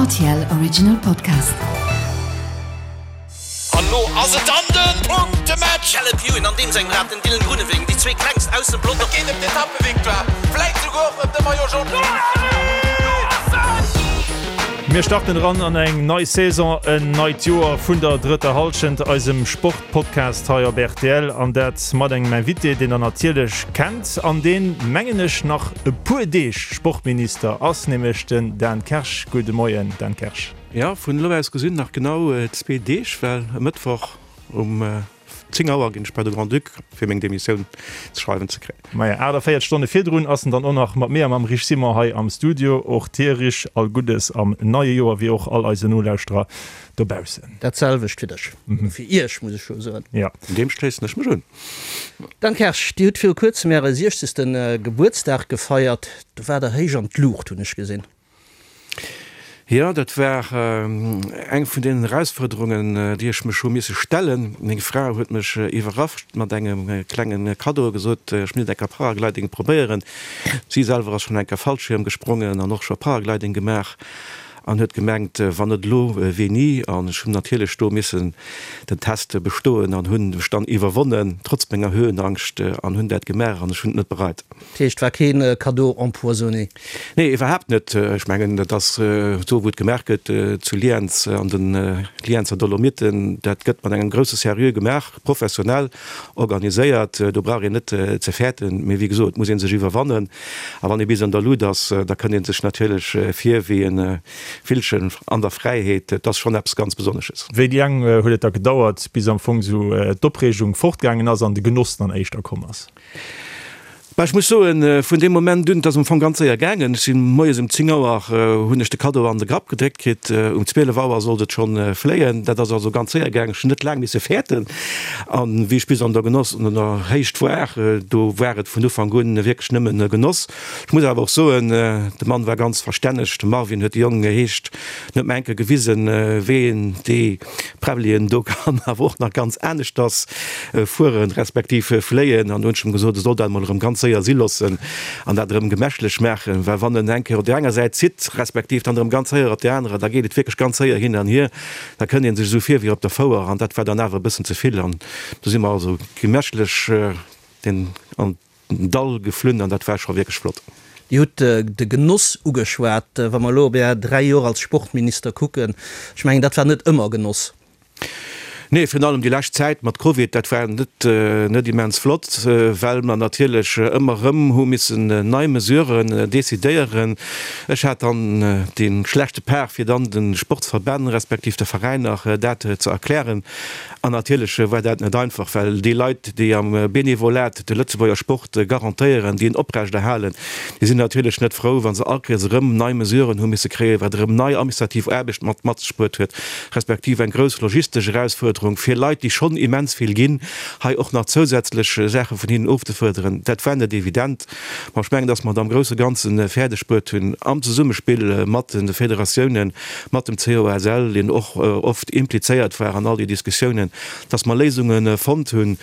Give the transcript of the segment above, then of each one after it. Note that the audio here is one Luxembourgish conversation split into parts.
RTL Original Podcast. An lo ass et dann den Punktematch! Caleb Ewan an deem sengem Rad den Dylan Groenewegen, déi zwee klengst aus dem Pelotong. Et geet ëm d'Etappevictoire, vläit souguer och ëm de Maillot Jaune. Mir starten eran an eng nei Saison, en neit Joer vun der drëtter Hallschent, eisem Sportpodcast hei op rtl. An dat mat engem Invité, deen der natierlech kennt an deen, mengen ech, nach e puer Deeg Sportminister ass, nämlech den Dan Kersch. Gudde Moien, Dan Kersch. Jo, vun elo aus gesinn nach genau zwee Deeg, well e Mëttwoch um 10 Auer ginn ech bei de Grand-Duc fir meng Demissioun ze schreiwen ze kréien. Maja, 48 Stonne virdrun ass en dann och nach mat mir a mam Rich Simon hei am Studio. Och dir, Rich, all Guddes am neie Joer, wéi och all eise Nolauschterer dobaussen. Dat selwecht fir dech, fir iech, muss ech jo soen. Jo. Deem schléissen ech mech un. Dan Kersch, Dir hutt viru kuerzem Äre 60. Gebuertsdag gefeiert. Do waart Der héich an d'Luucht, hunn ech gesinn. Jo, dat war eng vun deenen Erausfuerderungen, déi ech mech hu misse stellen. Meng Fra huet mech iwwerrascht mat engem klenge Kaddo a gesot, ech misst eng Kéier Paragliding probéieren. Si selwer ass schonn eng Kéier Fallschierm gesprongen an och scho Paragliding gemaach an huet gemengt, wann net elo, wéini? An ech hunn natierlech do missen den Test bestoen an hunn mech dann iwwerwonnen, trotz menger Höhenangscht, an hunn dat gemaach an ech hunn et net bereit. Dat heescht, war keen Cadeau empoisonné? Nee, iwwerhaapt net. Ech mengen, dat ass do, wou et gemaach gëtt, zu Lienz, an de Lienzer Dolomiten. Dat gëtt mat engem grousse Sérieux gemaach, professionell organiséiert. Do brauch een net ze fäerten. Mee wéi gesot, et muss ee sech iwwerwannen. A wann ee bis an der Lut ass, da kënnt ee sech natierlech vir wéi e Villchen an der Fräiheet. Et ass schonn eppes ganz Besonnesches. Wéi laang huet et da gedauert, bis am Fong esou d'Opreegung fortgaangen ass an de Genoss dann éischter komm ass? Bah, ech muss soen, vun deem Moment un, et ass am Fong ganz séier gaangen. Ech sinn moies um 10 Auer, hunn ech de Kaddo an de Grapp gedréckt kritt. Um 12 Auer sollt et schonn fléien. Dat ass also ganz séier gaangen. Ech hunn net laang misse fäerten. An wéi ech bis an der Genoss, an der Héicht war, do war et vun Ufank un wierklech nëmmen Genoss. Ech muss awer och soen, de Mann war ganz verstänneg. De Marvin huet de Jong geheescht, en huet mer eng Kéier gewisen, wéi een déi Präbbelien do kann awer och nach ganz aneschters fueren, respektiv fléien. An do hunn ech em gesot, e soll dat emol erëm ganz séier si loossen an dat erëm gemächlech maachen, well wann en eng Kéier op där enger Säit zitt, respektiv dann erëm ganz séier op där anerer, da geet et wierklech ganz séier hin an hier. Da kënnt ee sech esou vir wéi op der Fouer an dat war dann awer e bëssen ze vill. An do si mer also gemächlech den an den Dall geflunn an dat war scho wierklech flott. Dir hutt de Genoss ugeschwat. Wa mer elo op Är 3 Joer als Sportminister kucken, ech mengen, dat war net ëmmer Genoss. Nee, virun allem déi lescht Zäit mat Covid, dat war net net immens flott, well mer natierlech ëmmer erëm hu missen nei Mesuren decidéieren. Ech hat dann dee schlechte Part, fir dann de Sportsverbänn respektiv de Veräiner dat ze erklären. An natierlech war dat net einfach, well déi Leit, déi am Benevolat de Lëtzebuerger Sport garantéieren, déi en oprechterhalen, déi sinn natierlech net frou, wa se all Kéiers erëm nei Mesuren hu misse kréien, wat erëm nei administrativ Aarbecht mat mat sech bruet huet, respektiv eng grouss logistesch Erausfuerderung fir Leit, déi schonn immens vill ginn, hei och nach zousätzlech Saache vun hinnen ofzefuerderen. Dat war net evident. Ma ech mengen, dass mer et am grousse Ganze fäerdeg bruet hunn, am Zesummespill mat de Federatiounen, mat dem COSL, deen och oft implizéiert war an all déi Diskussiounen, dass mer Léisunge fonnt hunn,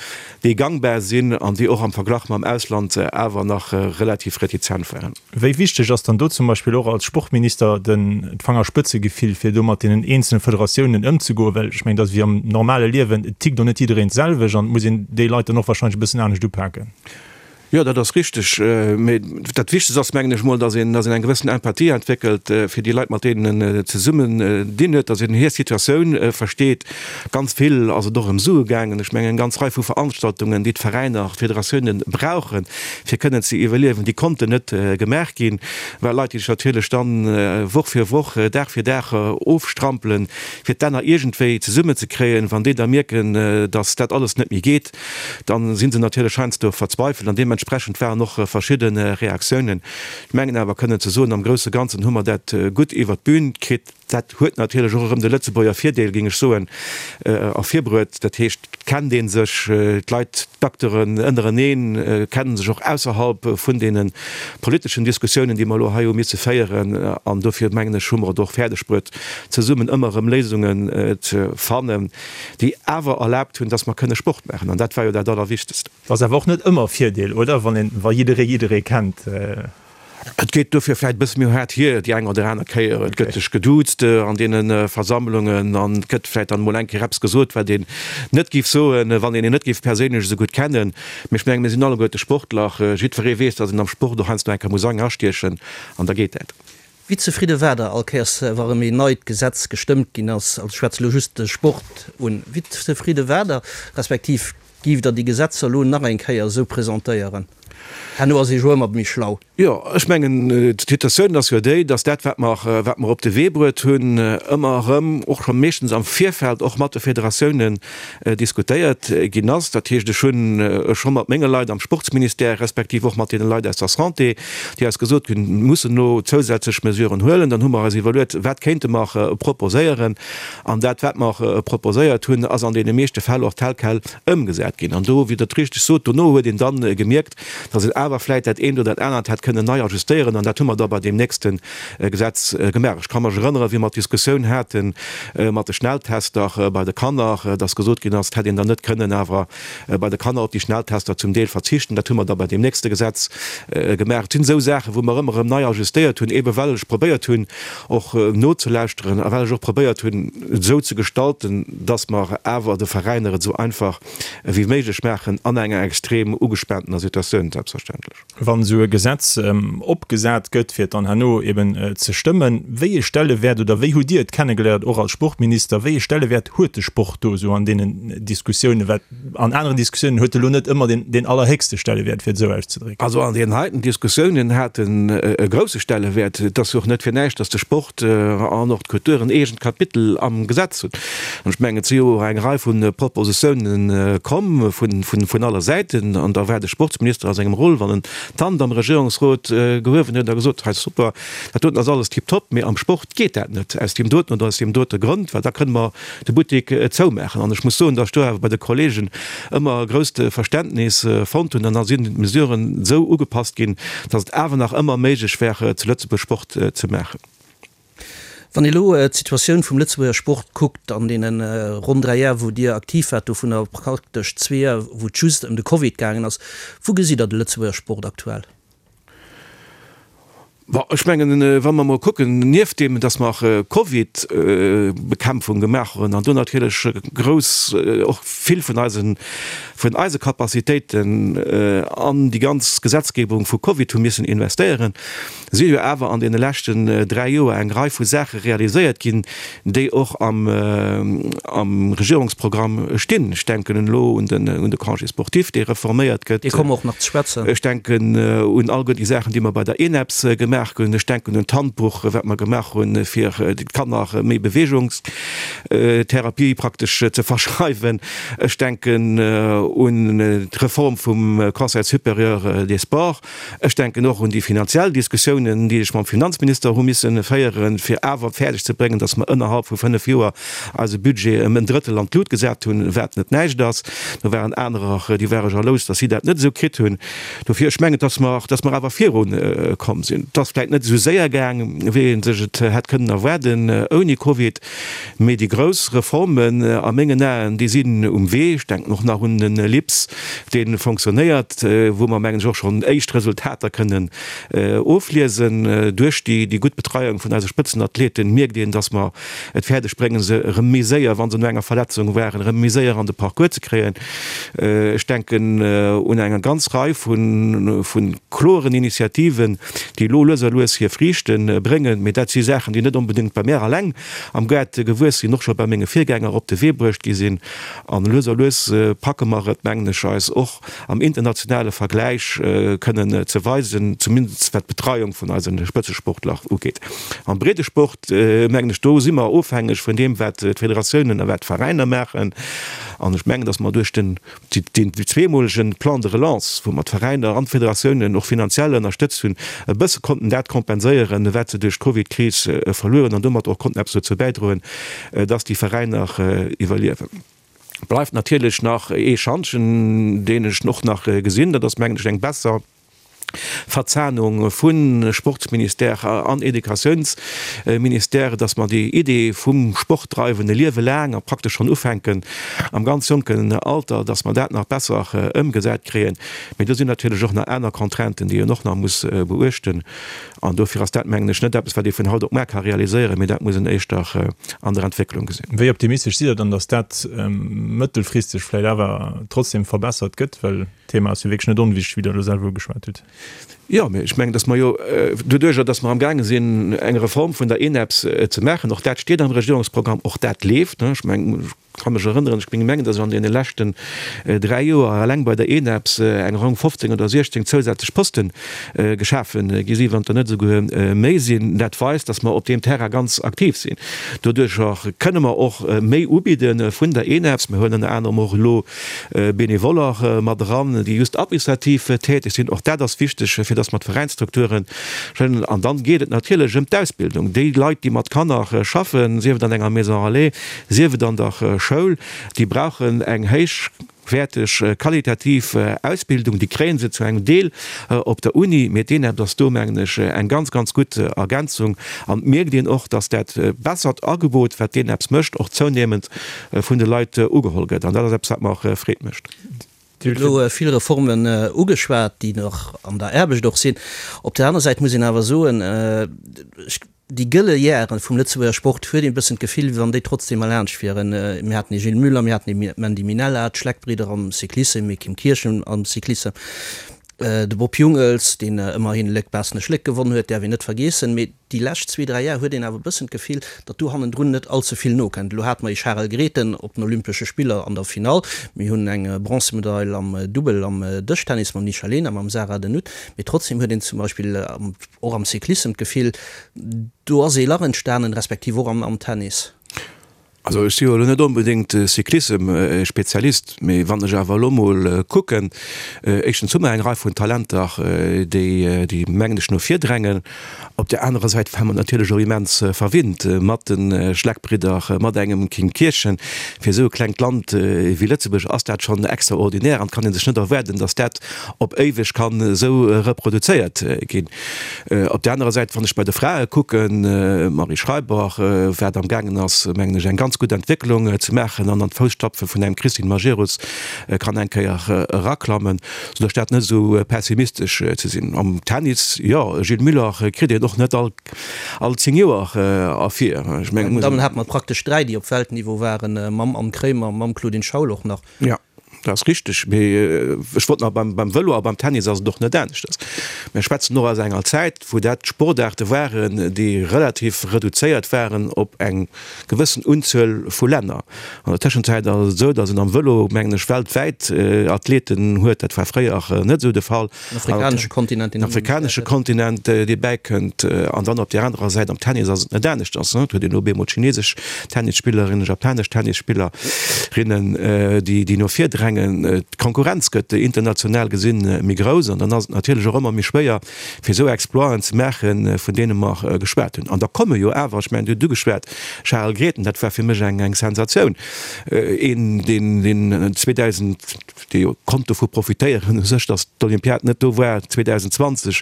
déi gangbar sinn an déi och am Verglach mam Ausland awer nach relativ retizent waren. Wéi wichteg ass dann do zum Beispill och als Sportminister den d'Fangerspëtzegefill, fir do mat deenen eenzele Federatiounen ëmzegoen? Well ech mengen, dat ass wéi am normale Liewen, et tickt och net jiddereen d'selwecht an et muss een déi Leit dann och wahrscheinlech e bëssen anescht upaken. Jo, dat ass richteg. Mee dat Wichtegst ass, mengen ech mol, datt een, datt een eng gewëssen Empathie entwéckelt fir déi Leit, mat deenen en zesummen dinn huet, datt een hir Situatioun versteet. Ganz vill ass et och ëm Sue gaangen. Ech mengen, eng ganz Rei vu Veranstaltungen, déi d'Veräiner, d'Federatiounen brauchen, fir kënnen ze iwwerliewen, déi konnten net gemaach ginn, well Leit, déi sech natierlech dann Woch fir Woch, Dag fir Dag ofstrampelen, fir d'Enner iergendwéi zesummenzekréien, wann déi da mierken, datt dat alles net méi geet, Dann si se natierlech heiansdo verzweifelt an deementsprechend waren och verschidde Reaktiounen. Ech mengen awer kënnen ze soen, am grousse Ganzen hu mer dat gutt iwwert d'Bün kritt. Dat huet natierlech och erëm de Lëtzebuerger Virdeel, géing ech soen, ervirbruet. Dat heescht, et kennt ee sech, d'Leit, d'Acteuren ënnereneen kennen sech och ausserhalb vun deene politeschen Diskussiounen, déi mer elo hei hu misse féieren. An dofir mengen ech, hu mer et och fäerdegbruet, zesummen ëmmer erëm Léisungen ze fannen. déi awer erlaabt hunn, dass mer kënne Sport maachen, an dat war jo dat Allerwichtegst. Ass awer och net ëmmer e Virdeel, oder, wann een, wa jidderee jidderee kennt? Et geet dofir vläit e bësse méi haart hier déi eng oder aner Kéier. Et gëtt sech geduuzt an deene Versammlungen an et gëtt vläit dann emol eng Kéier eppes gesot, wat een net géif soen, wann een een net géif perséinlech esou gutt kennen. Mee ech mengen, mir sinn alleguerte Sportler. Jiddweree weess, datt een am Sport och heiansdo eng Kéier muss eng astiechen an da geet dat. Wéi zefridde waart Der all Kéiers, wa rëm een neit Gesetz gestëmmt ginn ass? Also ech schwätze elo just de Sport un. Wéi zefridde waart Der, respektiv giff Der déi Gesetzer elo nach eng Kéier esou presentéieren? Herno ass ee jo ëmmer méi schlau. Jo, ech mengen, d'Situatioun ass jo déi, datt dat, wat mer, wat mer op de Wee bruet hunn, ëmmer erëm, och scho meeschtens am Virfeld, och mat de Federatiounen diskutéiert ginn ass. Dat heescht, ech hunn scho mat menge Leit am Sportsministère, respektiv och mat deene Leit aus der Santé, déi eis gesot hunn, mir mussen elo zousätzlech Mesuren huelen, dann hu mer eis iwwerluet, wat kéinte mer proposéieren. An dat, wat mer proposéiert hunn, ass an deene meeschte Fäll och tel quel ëmgesat ginn. An do, wéi Der et richteg sot, dono huet een da gemierkt, datt een awer vläicht dat eent oder dat anert hätt kënnen nei ajustéieren. An dat hu mer da bei deem nächste Gesetz gemaach. Ech ka mech erënneren, wéi mer d'Diskussioun hate mat de Schnelltester bei de Kanner, dass gesot ginn ass, et hätt een dann net kënnen awer bei de Kanner op déi Schnelltester zum Deel verzichten. Dat hu mer da bei deem nächste Gesetz gemaach. Et sinn esou Saachen, wou mer ëmmer erëm nei ajustéiert hunn, eebe well ech probéiert hunn, och nozelauschteren a well ech och probéiert hunn, et esou ze gestalten, dass mer awer de Veräiner et esou einfach wéi méiglech maachen an enger extrem ugespaantener Situatioun selbstverständlech. Wann esou e Gesetz opgesat gëtt, fir et dann herno eben ze stëmmen, wéi ee Stellewäert oder wéi hutt Dir et kennegeléiert, och als Sportminister, wéi ee Stellewäert huet de Sport do esou an deenen Diskussiounen? Well an aneren Diskussiounen huet e lo net ëmmer deen, deen allerhéchste Stellewäert, fir et esou auszedrécken. Also an deenen heiten Diskussiounen hat en e grousse Stellewäert. Et ass jo och net fir näischt, datt de Sport an och d'Kultur en eegent Kapitel am Gesetz hunn. An ech mengen, et si jo och eng Rei vu Propositiounen komm vun aller Säiten. An da war de Sportsminister a sengem Rôle, wann en d'Hand am Regierungsrot gehuewen huet a gesot huet, Hei super, dat doten ass alles tiptop, mee am Sport geet dat net aus deem doten oder aus deem dote Grond, well da kënne mer de Buttek zoumaachen. An ech muss soen, datt ech do awer bei de Kollegen ëmmer e grousst Verständnis fonnt hunn. An da sinn d'Mesuren esou ugepasst ginn, datt et awer nach ëmmer méiglech war, zu Lëtzebuerg Sport ze maachen. Wann ee elo d'Situatioun vum Lëtzebuerger Sport kuckt an deene ronn 3 Jar wou Dir aktiv waart, dovunner praktesch zwee Jar wou et just ëm de Covid gaangen ass, wou gesitt Der de Lëtzebuerger Sport aktuell? Bon, ech mengen, wa mer emol kucken, nieft deem, datt mer Covid-Bekämpfung gemaach hunn an do natierlech grouss, och vill vun eisen, vun eise Capacitéiten an déi ganz Gesetzgebung vu Covid hu missen investéieren, si jo awer an deene leschten 3 Joer eng Rei vu Saache realiséiert ginn, déi och am Regierungsprogramm stinn. Ech denken elo un de Congé sportif, dee reforméiert gëtt. Dee komme mer och nach ze schwätzen. Ech denken un alleguer déi Saachen, déi mer bei der ENEPS gemaach hunn. Ech denken un d'Handbuch, wat mer gemaach hunn, fir de Kanner méi Beweegungstherapie praktesch ze verschreiwen. Ech denken un d'Reform vum Conseil supérieur des sports. Ech denken och un déi finanziell Diskussiounen, déi ech mam Finanzminister hu misse féieren, fir awer fäerdeg ze bréngen, datt mer ënnerhalb vu fënnf Joer eise Budget ëm en Drëttel an d'Lut gesat hunn, wat net näischt ass. Do waren anerer, déi ware jalous, datt si dat net esou kritt hunn. Dofir, ech mengen, datt mer, datt mer awer virukomm sinn. Et ass vläicht net esou séier gaang, wéi ee sech et hätt kënnen erwaarden ouni Covid. Mee déi grouss Reformen a mengen Aen, déi sinn um Wee. Ech denken och nach un den LIPS, dee fonctionnéiert, wou mer, mengen ech, och schonn éischt Resultater kënnen ofliesen. Duerch déi gutt Betreiung vun eise Spëtzenathleten mierkt een, dass mer et fäerdeg bréngen, se erëm méi séier, wa se no enger Verletzung waren, erëm méi séier an de Parcours ze kréien. Ech denken un eng ganz Rei vu kloren Initiativen, déi elo lues a lues hir Friichte bréngen. Mee dat si Saachen, déi net onbedéngt bei mär alleng am Gaart gewuess sinn, och scho bei menge Virgänger op de Wee bruecht gi sinn. An lues a lues packe mer et, mengen ech, eis och am internationale Vergläich kënnen ze weisen, zumindest wat d'Betreiung vun eise Spëtzesportler ugeet. Am Breedesport, mengen ech, do si mer ofhängeg vun deem, wat d'Federatiounen a wat d'Veräiner maachen. An ech mengen, datt mer duerch den deen zweemolegen Plan de relance, wou mer d'Veräiner an d'Federatiounen och finanziell ënnerstëtzt hunn, e bësse konnten dat kompenséieren, wat se duerch d'Covidkris verluer hunn an domat och konnten eppes dozou bäidroen, dass déi Veräiner iwwerliewen. Bleift natierlech nach ee Schantjen, deen ech och nach gesinn, dat ass, mengen ech, eng besser. Verzahnung vu Sportsministère an Educatiounsministère, dass mer déi Idee vum Sport dreiwen e Liewe laang a praktesch schonn ufänken am ganz jonken Alter, dass mer dat nach besser ëmgesat kréien. Mee do sinn natierlech och nach aner Contrainten, déi een och nach muss beuechten. An dofir ass dat, mengen ech, net eppes, wat ee vun haut op muar ka realiséieren, mee dat muss een éischter an der Entwécklung gesinn. Wéi optimistesch sidd Der dann, dass dat mëttelfristeg vläicht awer trotzdem verbessert gëtt? Well d'Thema ass jo wierklech net onwichtig, wéi Der elo selwer ugeschwat hutt. Jo, mee ech mengen, dass mer jo doduerjer, dass mer amgaange sinn, eng Reform vun der ENEPS ze maachen, och dat steet am Regierungsprogramm, och dat leeft, ech mengen, ech ka mech erënneren, ech mengen, dass ech an deene leschten 3 Joer eleng bei der ENEPS eng ronn 15 oder 16 zousätzlech Poste geschafe gi sinn, wann et der net esouguer méi sinn. Dat weist, dass mer op deem Terrain ganz aktiv sinn. Doduerjer kënne mer och méi ubidde vun der ENEPS. Mir huelen ënner anerem och elo Benevoller mat eran, déi just administrativ täteg sinn. Och dat ass wichteg, fir dass mer d'Veräinsstrukture schënnen. An dann geet et natierlech ëm d'Ausbildung. Déi Leit, déi mat Kanner schaffen, sief et an enger Maison relais, sief et an der Schoul, déi brauchen eng héichwäerteg, qualitativ Ausbildung. Déi kréie se zu engem Deel op der Uni, mee d'ENEPT ass do, mengen ech, eng ganz, ganz gutt Ergänzung. An et mierkt een och, dass dat bessert Agebot, wat d'ENEPS mécht, och zounehmend vun de Leit ugeholl gëtt. An dat ass eppes, wat mer Freed mécht. Dir hutt elo vill Reformen ugeschwat, déi nach an der Aarbecht och sinn. Op der aner Säit muss een awer soen, déi gëlle Jahre vum Lëtzebuerger Sport huet een e bëssen d'Gefill, wéi wann déi trotzdem erlaanscht wieren. Mir haten ee Gilles Muller, mir haten ee Mandy Minella, d'Schleck-Bridder am Cyclissem, ee Kim Kirchen am Cyclissem, de Bob Jungels, deen ëmmerhin Léck-Baaschtnech-Léck gewonn huet, däerf een net vergeessen. Mee Déi lescht zwee, dräi Jar huet een awer e bëssen d'Gefill, datt do hannendrun net all ze vill nokënnt. Elo hate mer ee Charel Grethen op den Olympesche Spiller an der Finall. Mir hunn eng Bronzemedail am Dubbel am Dëschtennis mam Nisha Lehner, mam Sarah De Nutte. Mee trotzdem huet een zum Beispill och am Cyclissem d'Gefill, do ass ee Lach entstanen, respektiv och am Tennis. Also ech si jo elo net onbedéngt Cyclissem-Spezialist, mee wann ech awer elo mol kucken, éischtens hu mer eng Rei vun Talenter, déi, déi mengen ech no vir drängen. Op där anerer Säit ware mer natierlech och immens verwinnt mat de Schleck-Bridder, mat engem Kim Kirchen. Fir esou e klengt Land wéi Lëtzebuerg ass dat schonn extraordinär an et kann ee sech net erwaarden, datt dat op éiweg kann esou reproduzéiert ginn. Op där anerer Säit, wann ech bei de Frae kucken, d'Marie Schreiber, wat amgaangen ass, mengen ech, eng ganz gutt Entwécklung ze maachen an an d'Fousstapfe vun engem Christine Majerus kann eng Kéier eraklammen, soudass dat net esou pessimistesch ze sinn. Am Tennis, jo, e Gilles Muller kritt een och net all 10 Joer ervir. Ech mengen, Bei den Dammen hate mer praktesch dräi, déi op Weltniveau waren, mam Anne Kremer, mam Claudine Schaul och nach. Jo. Dat ass richteg, mee ech wollt nach beim Vëlo a beim Tennis ass et och net aneschters. Mir schwätzen och aus enger Zäit, wou dat Sportaarte waren, déi relativ reduzéiert waren op eng gewëssen Unzuel vu Länner. An der Tëschenzäit ass et esou, datt een am Vëlo, mengen ech, weltwäit Athleten huet. Dat war fréier net esou de Fall. Den afrikanesche Kontinent, deen afrikanesche Kontinent, dee bäikënnt. An dann op där anerer Säit am Tennis ass et net aneschters. Et huet een op eemol chinesesch Tennisspillerinnen, japanesch Tennisspillerinnen, déi, déi no vir drängen. D'Konkurrenz gëtt international gesinn méi grouss an dann ass et natierlech och ëmmer méi schwéier, fir esou Exploiten ze maachen, vun deene mer geschwat hunn. An da komme jo awer, ech mengen, Dir hutt ugeschwat, Charel Grethen, dat war fir mech eng, eng Sensatioun, een, deen, deen 2000, dee jo konnt dovu profitéieren u sech, datt d'Olympiad net do war 2020,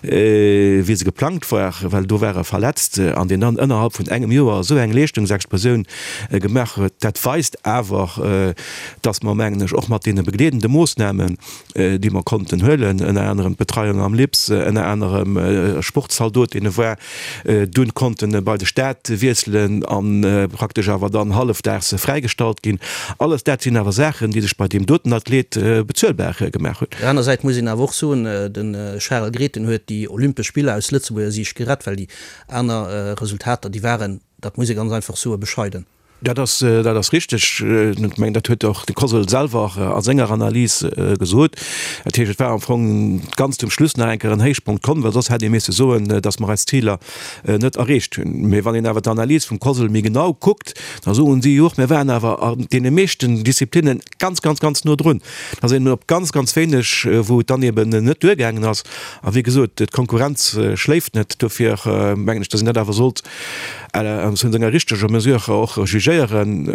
wéi se geplangt war, well do war e verletzt, an deen dann ënnerhalb vun engem Joer esou eng Leeschtungsexplosioun gemaach huet, dat weist awer, datt mer, mengen ech, och mat deene begleedende Moossnamen, déi mer konnten huelen, ënner anerem d'Betreiung am LIPS, ënner anerem Sportzaldot, deen e war, dunn konnten bei de Staat wiesselen a praktesch awer dann hallefdaags fräigestallt ginn. Alles dat sinn awer Saachen, déi sech bei deem doten Athlet bezuelbar gemaach hunn. Op der aner Säit muss een awer och soen, de Charel Grethen huet déi Olympesch Spiller aus Lëtzebuerger Siicht gerett, well déi aner Resultater, déi waren, dat muss ee ganz einfach soen, bescheiden. Dat ass, dat ass richteg. Ech mengen, dat huet och de COSL selwer a senger Analys gesot. Dat heescht, et war am Fong ganz zum Schluss nach eng Kéier en Héichpunkt komm, well soss hätt ee misse soen, datt mer eis Ziler net erreecht hunn. Mee wann een awer d'Analys vum COSL méi genau kuckt, da soen si jo och, mir waren awer an deene meeschten Disziplinne ganz, ganz, ganz no drun. Da sinn op ganz, ganz wéineg, wou et dann eben net duergaangen ass. A wéi gesot, d'Konkurrenz schléift net. Dofir mengen ech, datt een dat awer sollt vun senger richteger Mesure och jugéieren. korrigéieren.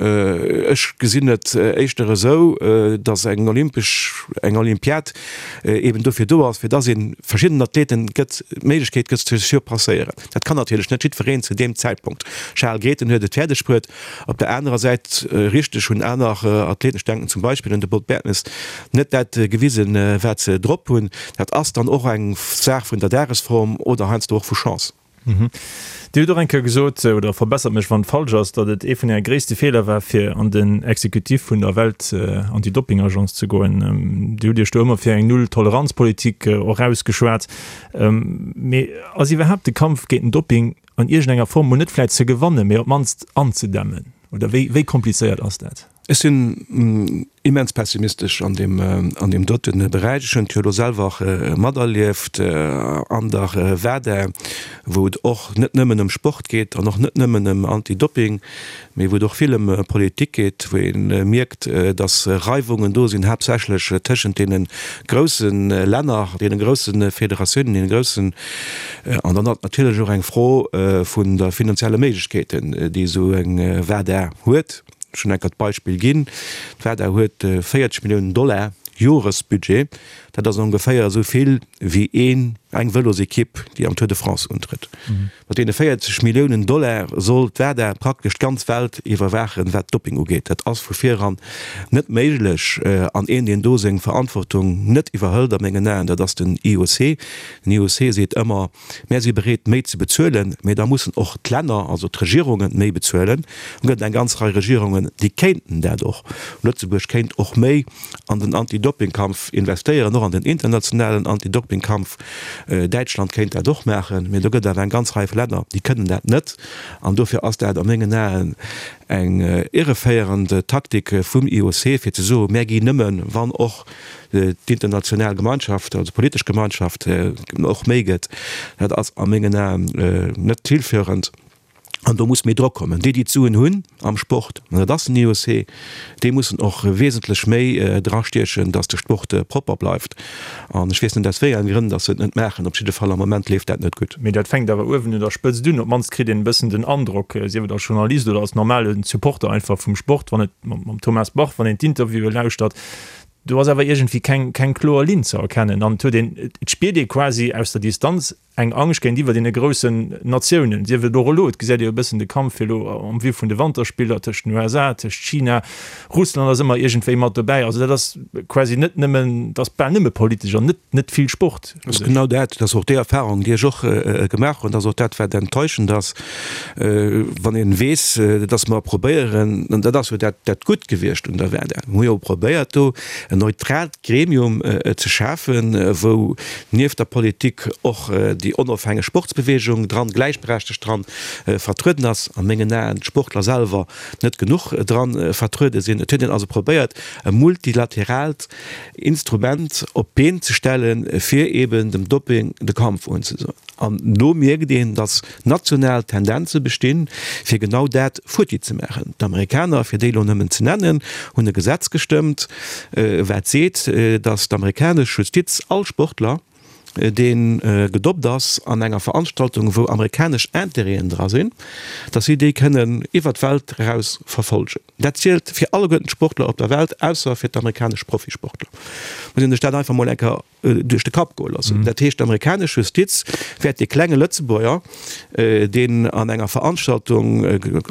Ech gesinn et éischter esou, datt eng olympesch, eng Olympiad eben dofir do ass, fir datt ee verschiddenen Athleten gëtt, d'Méiglechkeet gëtt ze surpasséieren. Dat kann natierlech net jiddwereen zu deem Zäitpunkt. Charel Grethen huet et fäerdeg bruet. Op der anerer Säit, richteg, hunn aner Athleten, ech denken zum Beispill un de Bob Bertemes, net dat gewisen, wat se drop hunn. Dat ass dann och eng Saach vun der Dagesform oder heiansdo och vu Chance. Dir hutt och eng Kéier gesot, oder verbessert mech wann et falsch ass, datt et ee vun Äre gréisste Feeler war, fir an den Executif vun der Welt-Anti-Doping-Agence ze goen. Dir hutt Iech do ëmmer fir eng Null-Toleranz-Politik och ausgeschwat. Mee ass iwwerhaapt de Kampf géint den Doping an iergendenger Form, mol net vläit ze gewannen, mee op d'mannst anzedämmen? Oder wéi, wéi komplizéiert ass dat? Ech sinn immens pessimistesch an deem, an deem dote Beräich. Ech hunn et jo elo selwer materlieft an der WADA, wou et och net nëmmen ëm Sport geet an och net nëmmen ëm Anti-Doping, mee wou et och vill ëm Politik geet, wou ee mierkt, datt Reiwungen do sinn, haaptsächlech tëschent deene grousse Länner, deene grousse Federatiounen, deene groussen, an dann ass et natierlech och eng Fro vun der finanzielle Méiglechkeeten, déi esou eng WADA huet. Ech hunn enker d'Beispill ginn, D'WADA huet 40 Milliounen Dollar Joresbudget. Dat ass ongeféier esou vill wéi een, eng Vëlosekipp, déi am Tour de France untrëtt. Mat deene 40 Milliounen Dollar soll d'WADA praktesch d'ganz Welt iwwerwaachen, wat Doping ugeet. Dat ass vu viran net méiglech. An een, deen do seng Verantwortung net iwwerhëlt a mengen Aen, dat ass den IOC. Den IOC seet ëmmer, Mär si bereet, méi ze bezuelen, mee da mussen och d'Länner, also d'Regierungen, méi bezuelen. Et gëtt eng ganz Rei Regierungen, déi kéinten dat och. Lëtzebuerg kéint och méi an den Anti-Doping-Kampf investéieren, och an den internationalen Anti-Doping-Kampf. Däitschland kéint dat och maachen, mee do gëtt awer eng ganz Rei vu Länner, déi kënnen dat net. An dofir ass dat a mengen Aen eng irreféierend Taktik vum IOC, fir ze soen, Mär ginn nëmmen, wann och d'international Gemeinschaft, also politesch Gemeinschaft, och méi gëtt, dat ass a mengen Aen net zielführend. An do muss méi Drock kommen. Déi, déi d'Suen hunn am Sport, an dat ass den IOC, déi mussen och wesentlech méi drastiechen, datt de Sport propper bleift. An ech weess net, aus wéi enge Grënn datt se et net maachen. Op jidde Fall am Moment leeft dat net gutt. Mee dat fänkt awer uewen un der Spëtzt un. Op d'mannst kritt een e bëssen den Androck, sief et als Journalist oder als normale Supporter einfach vum Sport, wann et mam Thomas Bach, wann een d'Interviewe lauschtert, Do ass awer iergendwéi keng, keng kloer Linn ze erkennen an et huet een, et spiert ee quasi aus der Distanz eng Angscht géintiwwer deene groussen Natiounen, sief et och elo, et gesäit ee jo e bëssen de Kampf fir elo en vue vun de Wanterspiller tëscht den USA, tëscht China, Russland ass ëmmer iergendwéi mat dobäi. Also dat ass quasi net nëmmen, dat ass bal nëmme politesch an net, net vill Sport. Dat ass genau dat, dat ass och déi Erfahrung, déi ech och gemaach hunn, dat ass och dat, wat enttäuschend ass, Wann ee weess, datt mer probéieren, an dat ass jo dat dat Gutt gewiescht un der WADA, mir hu jo probéiert do en neutraalt Gremium ze schafen, wou nieft der Politik och déi onofhängeg Sportsbewegung dran, gläichberechtegt dran vertrueden ass, a mengen Aen d'Sportler selwer net genuch dran vertruede sinn. Et huet een also probéiert e multilateraalt Instrument op d'Been ze stellen, fir eben dem Doping de Kampf unzesoen. An do mierkt een, datt national Tendenze bestinn, fir genau dat futti ze maachen. D'Amerikaner, fir déi elo nëmmen ze nennen, hunn e Gesetz gestëmmt, wat seet, datt d'amerikanesch Justiz all Sportler, dee gedoppt ass an enger Veranstaltung, wou amerikanesch Intérêten dra sinn, datt si déi kënnen iwwer d'Welt eraus verfolgen. Dat zielt fir alleguerten d'Sportler op der Welt, ausser fir d'amerikanesch Profisportler. Muss een sech dat einfach mol eng Kéier duerch de Kapp goe loossen. Dat heescht, d'amerikanesch Justiz wäert dee klenge Lëtzebuerger, deen an enger Veranstaltung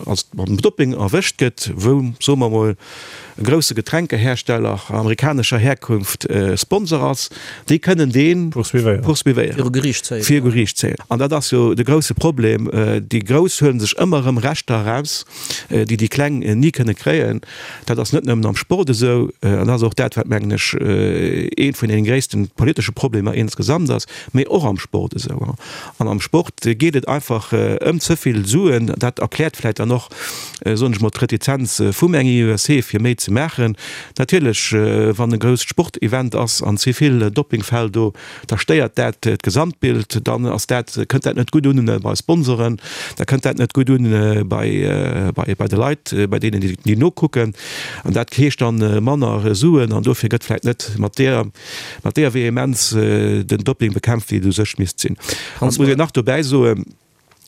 als mam Dopping erwëscht gëtt, wou, soe mer emol, e grousse Getränkehersteller amerikanescher Herkunft Sponsor ass, déi kënnen dee poursuivéieren, viru Geriicht zéien. Viru Geriicht zéien. An dat ass jo de grousse Problem. Déi Grouss huele sech ëmmer erëm Rechter eraus, déi déi Kleng ni kënne kréien. Dat ass net nëmmen am Sport esou, an dat ass och dat, wat, mengen ech, eent vun deene gréisste politesche Problemer insgesamt ass, mee och am Sport esou. An am Sport geet et einfach ëm ze vill Suen. Dat erkläert vläicht dann och, soen ech mol, d'Retizenz vum eng IOC, fir méi ze maachen. Natierlech, wann e grousst Sportevent ass an ze vill Doppingfäll do, da stéiert dat d'Gesamtbild, dann ass dat, kënnt dat net gutt un bei Sponsoren, da kënnt dat net gutt un bei, bei de Leit, bei deenen, déi nokucken. An dat heescht dann manner Suen an dofir gëtt vläicht net mat deer, mat deer Vehemenz den Dopping bekämpft, wéi et u sech misst sinn. An et muss een nach dobäi soen.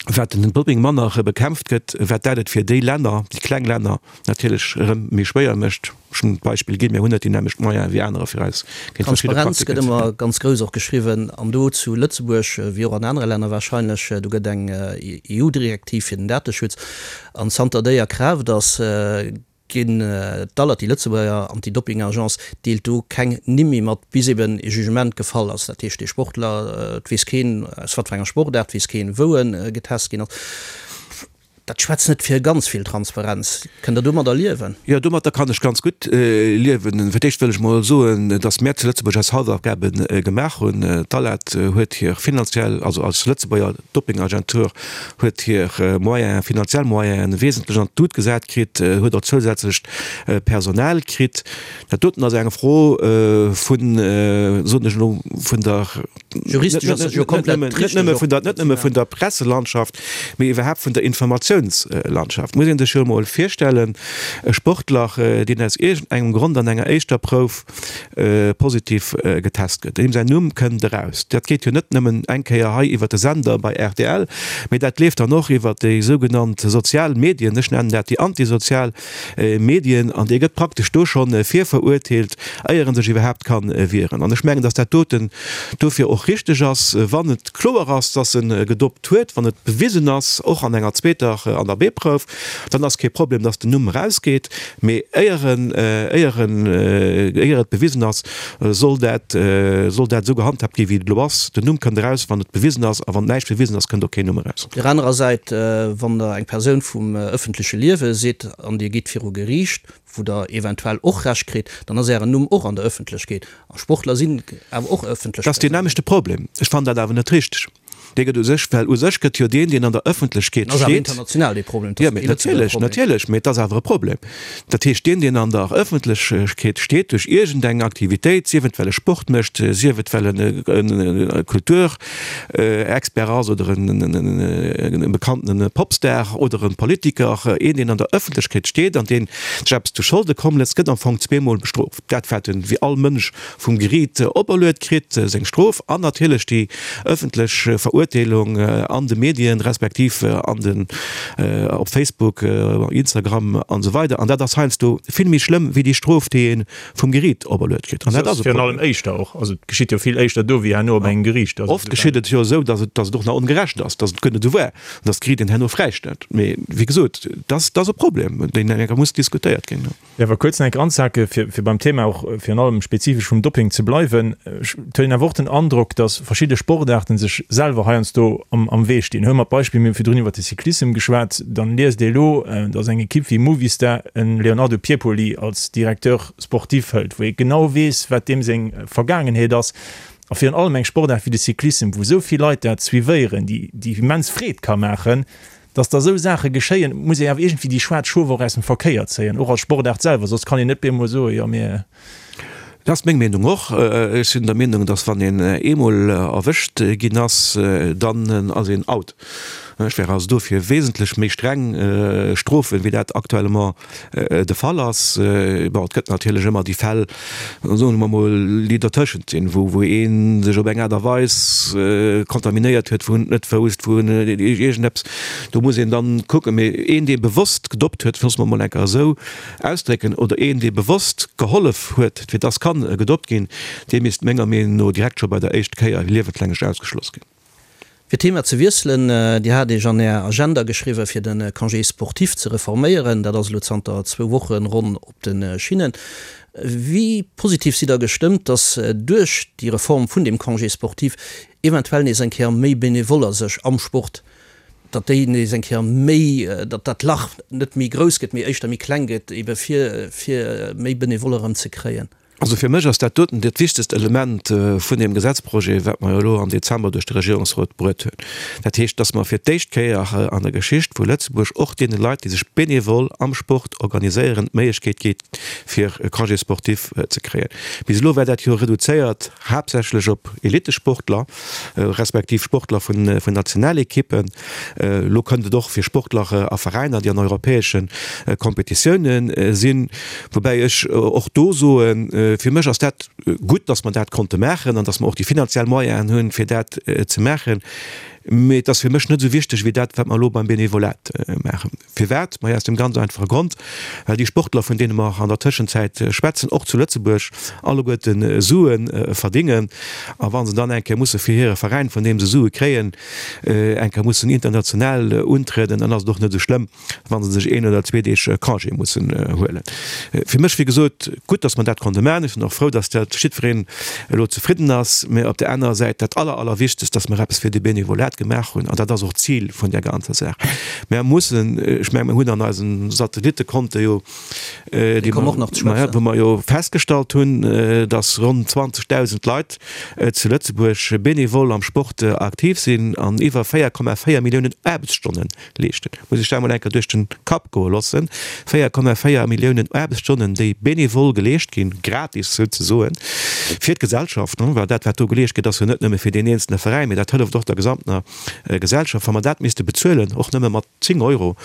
Wat den Doping manner bekämpft gëtt, wat dat et fir déi Länner, déi kleng Länner natierlech erëm méi schwéier mécht. Ech hunn d'Beispill ginn, mir hunn net déi nämmlecht Moyene wéi anerer fir eis géint verschidde Transparenz gëtt Praktiken ze ëmmer ganz grouss och geschriwwen an do zu Lëtzebuerg wéi och an anere Länner wahrscheinlech. Do gëtt eng EU-Direktiv fir den Dateschutz an zanter déi a Kraaft ass, ginn d'ALAT, déi Lëtzebuerger Anti-Doping-Agence, deelt do keng Nimm méi mat, bis eben e Jugement gefall ass. Dat heescht, dee Sportler, et weess keen aus wat fir enger Sportaart, et weess keen, wou e getest ginn ass. Dat schwätzt net fir ganz vill Transparenz. Kënnt Der domadder liewen? Jo, domadder kann ech ganz gutt liewen. Fir d'éischt wëll ech mol soen, datt mär zu Lëtzebuerg eis Hausaufgabe gemaach hunn. D'ALAT huet hir finanziell, also als Lëtzebuerger Dopingagentur, huet hir Moyenen, finanziell Moyenen wesentlech an d'Lut gesat kritt, huet och zousätzlecht Personal kritt. Dat doten ass eng Fro vun, soen ech elo, vun der, Juristesch ass dat jo komplett net nëmme vun der, net nëmme vun der Presselandschaft, mee iwwerhaapt vun der Informatiounslandschaft. Muss ee sech jo emol virstellen, e Sportler, deen aus iergendengem Grond an enger éischter Prouf positiv getest gëtt, deem säin Numm kënnt eraus. Dat geet jo net nëmmen eng Kéier hei iwwer de Sender bei rtl, mee dat leeft dann och iwwer déi sougenannt sozial Medien, ech nennen dat déi antisozial Medien, an dee gëtt praktesch do schonn virverurteelt, éier en sech iwwerhaapt ka wieren. An ech mengen, datt dat doten dofir och richteg ass, wann et kloer ass, datt e gedopt huet, wann et bewisen ass, och an enger zweeter, an der B-Prouf, dann ass kee Problem, datt den Numm erausgeet. Mee éier en, éier en, éier et bewisen ass, soll dat, soll dat esou gehandhaabt ginn, wéi et elo ass. Den Numm kënnt eraus, wann et bewisen ass, a wann näischt bewisen ass, kënnt och keen Numm eraus. Op där anerer Säit, wann Der eng Persoun vum ëffentleche Liewe sidd an Dir gitt viru Geriicht, wou Der eventuell och Recht kritt, dann ass Ären Numm och an der Ëffentlechkeet. A Sportler sinn awer och ëffentlech Dat ass deen Persounen. nämmlechte Problem. Ech fannen dat awer net richteg. Dee gëtt u sech, well u sech gëtt jo deen, deen an der Ëffentlechkeet Ass awer steet. international dee Problem, et Jo, ass mee kee Lëtzebuerger natierlech, Problem. natierlech, mee et ass awer e Problem. Dat heescht, deen, deen an der Ëffentlechkeet steet duerch iergendeng Aktivitéit, sief et well e Sport mécht, sief et well en e Kulturexpert ass oder en e bekanntene Popstar oder e Politiker, een, deen an der Ëffentlechkeet steet an deen sech eppes zu Scholde komm léisst, gëtt am Fong zweemol bestrooft. Dat, wat en, wéi all Mënsch, vum Geriit operluet kritt, seng Strof an natierlech déi ëffentlech Verurteelung an de Medien, respektiv an den, op Facebook, Instagram an esou weider. An dat ass heiansdo vill méi schlëmm wéi déi Strof, déi ee vum Geriit operluet kritt. An dat ass e Virun allem Problem. éischter och. Also et geschitt jo vill éischter do wéi herno op engem Geriicht. Also Oft geschitt et jo esou, datt et, datt et och nach ongerecht ass, datt et guer net esou war, an datt d'Geriit een herno fräistellt. Mee wéi gesot, dat ass e Problem, deen eng Kéier muss diskutéiert ginn. Jo, awer kuerz nach eng Kéier anzehake fir, fir beim Thema och virun allem spezifesch vum Dopping ze bleiwen. Ech et huet een awer och den Androck, datt verschidde Sportaarten sech selwer heiansdo am, am Wee stinn. Huele mer d'Beispill, mir hu virdrun iwwert de Cyclissem geschwat, dann liest ee elo, datt eng Ekipp wéi Movistar e Leonardo Piepoli als Directeur sportif hëlt, wou ee genau weess, wat deem seng Vergaangenheet ass. A virun allem eng Sportaart wéi de Cyclissem, wou esou vill Leit dat suivéieren, déi, déi immens Freed ka maachen, Dass da esou Saache geschéien, muss ee awer iergendwéi déi schwaarz Schof och aus dem Verkéier zéien, och als Sportaart selwer, soss kann een net bemol soen, jo mir. Dat ass meng Meenung och. Ech sinn der Meenung, dass wann een eemol erwëscht ginn ass, dann ass een out. Ech wär also dofir wesentlech méi streng Strofen, wéi dat actuellement de Fall ass. Bon, et gëtt natierlech ëmmer déi Fäll, soe mer mol, déi dertëschent sinn, wou wou ee sech op eng Aart a Weis kontaminéiert huet, wou en et net wousst, wou en iergendeppes, do muss een dann kucken. Mee een, dee bewosst gedoppt huet, loosse mer mol eng Kéier esou ausdrécken, oder een, dee bewosst gehollef huet, fir dass kann gedoppt ginn, dee misst menger Meenung no direkt scho bei der éischt Kéier liewenslänglech ausgeschloss ginn. Fir d'Thema ze wiesselen, Dir hat Iech an Är Agenda geschriwwen, fir de Congé sportif ze reforméieren. Dat ass elo zanter zwou Woche ronn op de Schinnen. Wéi positiv sidd Der gestëmmt, datt duerch déi Reform vun deem Congé sportif eventuell nees eng Kéier méi Benevoller sech am Sport, datt déi nees eng Kéier méi, datt dat Lach net méi grouss gëtt, mee éischter méi kleng gëtt, ebe fir fir méi Benevoller erëm ze kréien? Also fir mech ass dat doten dat wichtegst Element vun deem Gesetzprojet, wat mer jo elo am Dezember duerch de Regierungsrot bruet hunn. Dat heescht, dass mer fir d'éischt Kéier an der Geschicht vu Lëtzebuerg och deene Leit, déi sech bénévol am Sport organiséieren, d'Méiglechkeet gi fir e Congé sportif ze kréien. Bis elo war dat jo reduzéiert haaptsächlech op Elittesportler respektiv Sportler vun Nationalekippen. Elo kënnt et och fir Sportler a Veräiner, déi an europäesche Kompetitioune sinn. Woubäi ech och do soen, fir mech ass dat gutt, datt mer dat konnte maachen an datt mer och déi finanziell Moyenen hunn, fir dat ze maachen. Mee et ass fir mech net esou wichteg wéi dat, wat mer elo beim Benevolat maachen. Firwat? Maja, aus dem ganz einfache Grond, well déi Sportler, vun deene mer an der Tëschenzäit schwätzen, och zu Lëtzebuerg alleguerte Sue verdingen. A wa se dann eng Kéier musse fir hire Veräin, vun deem se Sue kréien, eng Kéier mussen international untrieden, dann ass et och net esou schlëmm, wa se sech een oder zwee Deeg Congé mussen huelen. Fir mech, wéi gesot, gutt, datt mer dat konnte maachen. Ech sinn och frou, datt dat jiddwereen elo zefridden ass. Mä op där anerer Säit, dat aller, allerwichtegst, datt mer eppes fir de Benevolat gemaach hunn. An dat ass och d'Zil vun där ganzer Saach. Mer mussen, ech mengen, mer hunn an eise Satellittekonte jo, déi mer, wou mer jo festgestallt hunn, datt ronn 20.000 Leit zu Lëtzebuerg benevol am Sport aktiv sinn an iwwer 4,4 Milliounen Aarbechtsstonnen leeschten. Muss ech dat emol eng Kéier duerch den Kapp goe loossen, 4,4 Milliounen Aarbechtsstonnen, déi benevol geleescht ginn, gratis souzesoen, fir d'Gesellschaft, well dat, wat do geleescht gëtt, ass jo net nëmme fir deen eenzelne Veräin, mee dat hëlleft och der gesamtener Gesellschaft. Wa mer dat misste bezuelen, och nëmme mat 10 Euro,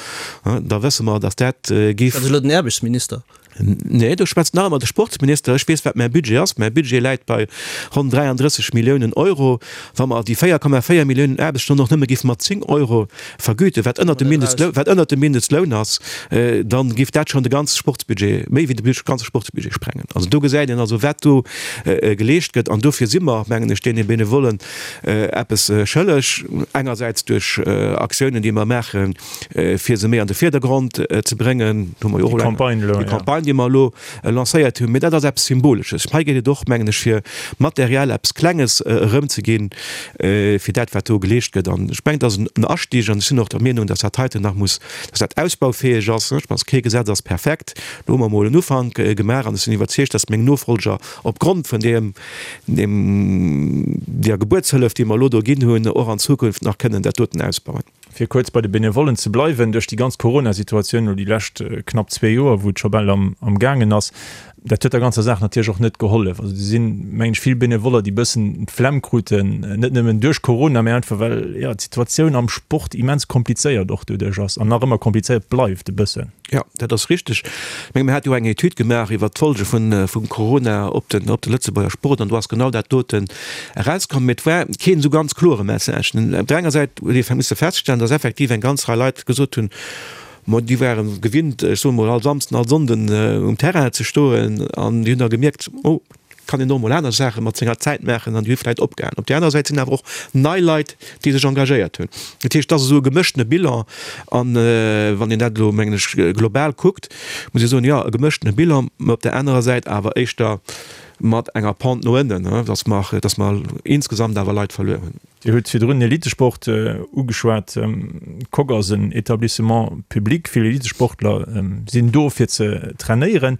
da wësse mer, datt dat géif. Dat ass elo den Aarbechtsminister. Nee, do schwätzt nach ëmmer de Sportsminister. Ech weess, wat mäi Budget ass. Mäi Budget läit bei ronn 33 Milliounen Euro. Wa mer déi 4,4 Milliounen Aarbechtsstonnen och nëmme géife mat 10 Euro vergüten, wat ënnert dem Mindestloun, wat ënnert dem Mindestloun ass, da géif dat schonn de ganze Sportsbudget, méi wéi de ganze Sportsbudget sprengen. Also do gesäit een also, wat do geleescht gëtt. An dofir si mer, mengen ech, deene Benevollen eppes schëlleg, engersäits duerch Aktiounen, déi mer maachen, fir se méi an de Virdergrond ze bréngen. Do hu mer jo och elo eng, déi Campagne, déi mer elo lancéiert hunn. Mee dat ass eppes Symbolesches. Hei geet et och, mengen ech, fir materiell eppes Klenges erëmzeginn, fir dat, wat do geleescht gëtt. An ech mengen, dat ass en Astieg. An ech sinn och der Meenung, dass dat heiten nach muss, dass dat ausbaufäeg ass. Ech mengen, kee Gesetz ass perfekt. Do hu mer emol en Ufank gemaach. An ech sinn iwwerzeegt, dass meng Nofolger opgrond vun deem, deem, där Gebuertshëllef, déi mer elo do ginn hunn, och an Zukunft nach kënnen dat doten ausbauen. Fir kuerz bei de Benevollen ze bleiwen, duerch déi ganz Corona-Situatioun elo déi lescht knapp zwee Joer, wou et scho bal am gaangen ass, dat huet der ganzer Saach natierlech och net gehollef. Also do sinn, mengen ech, vill Benevoller, déi e bëssen d'Flemm kruten, net nëmmen duerch Corona, mä einfach well, jo, d'Situatioun am Sport immens komplizéiert och doduerch ass an nach ëmmer komplizéiert bleift e bëssen. Jo, dat ass richteg. Ech menge mir hate jo eng Etüd gemaach iwwert d'Folge vum Corona op den op de Lëtzebuerger Sport an do ass genau dat doten erauskomm. Mee et war keen esou ganz klore Message. Op der enger Säit huet ee misse feststellen, datt effektiv eng ganz Rei Leit gesot hunn, ma déi ware gewinnt, ech soe mol all Samsden, all Sonnden um Terrain ze stoen an déi hunn da gemierkt, oh, kann een och mol aner Saache mat senger Zäit maachen an déi hu vläicht opgehalen. Op där aner Säit sinn awer och nei Leit, déi sech engagéiert hunn. Dat heescht, et ass esou e gemëschtene Bilan an wann een dat elo, mengen ech, global kuckt, muss ee soen, jo, e gemëschtene Bilan, mä op där anerer Säit awer éischter mat enger Pente no ënnen, dass mer, dass mer insgesamt awer Leit verluer hunn. Dir hutt virdrun den Elitesport ugeschwat. D'Coque ass en Etablissement public. Vill Elitesportler sinn do fir ze trainéieren.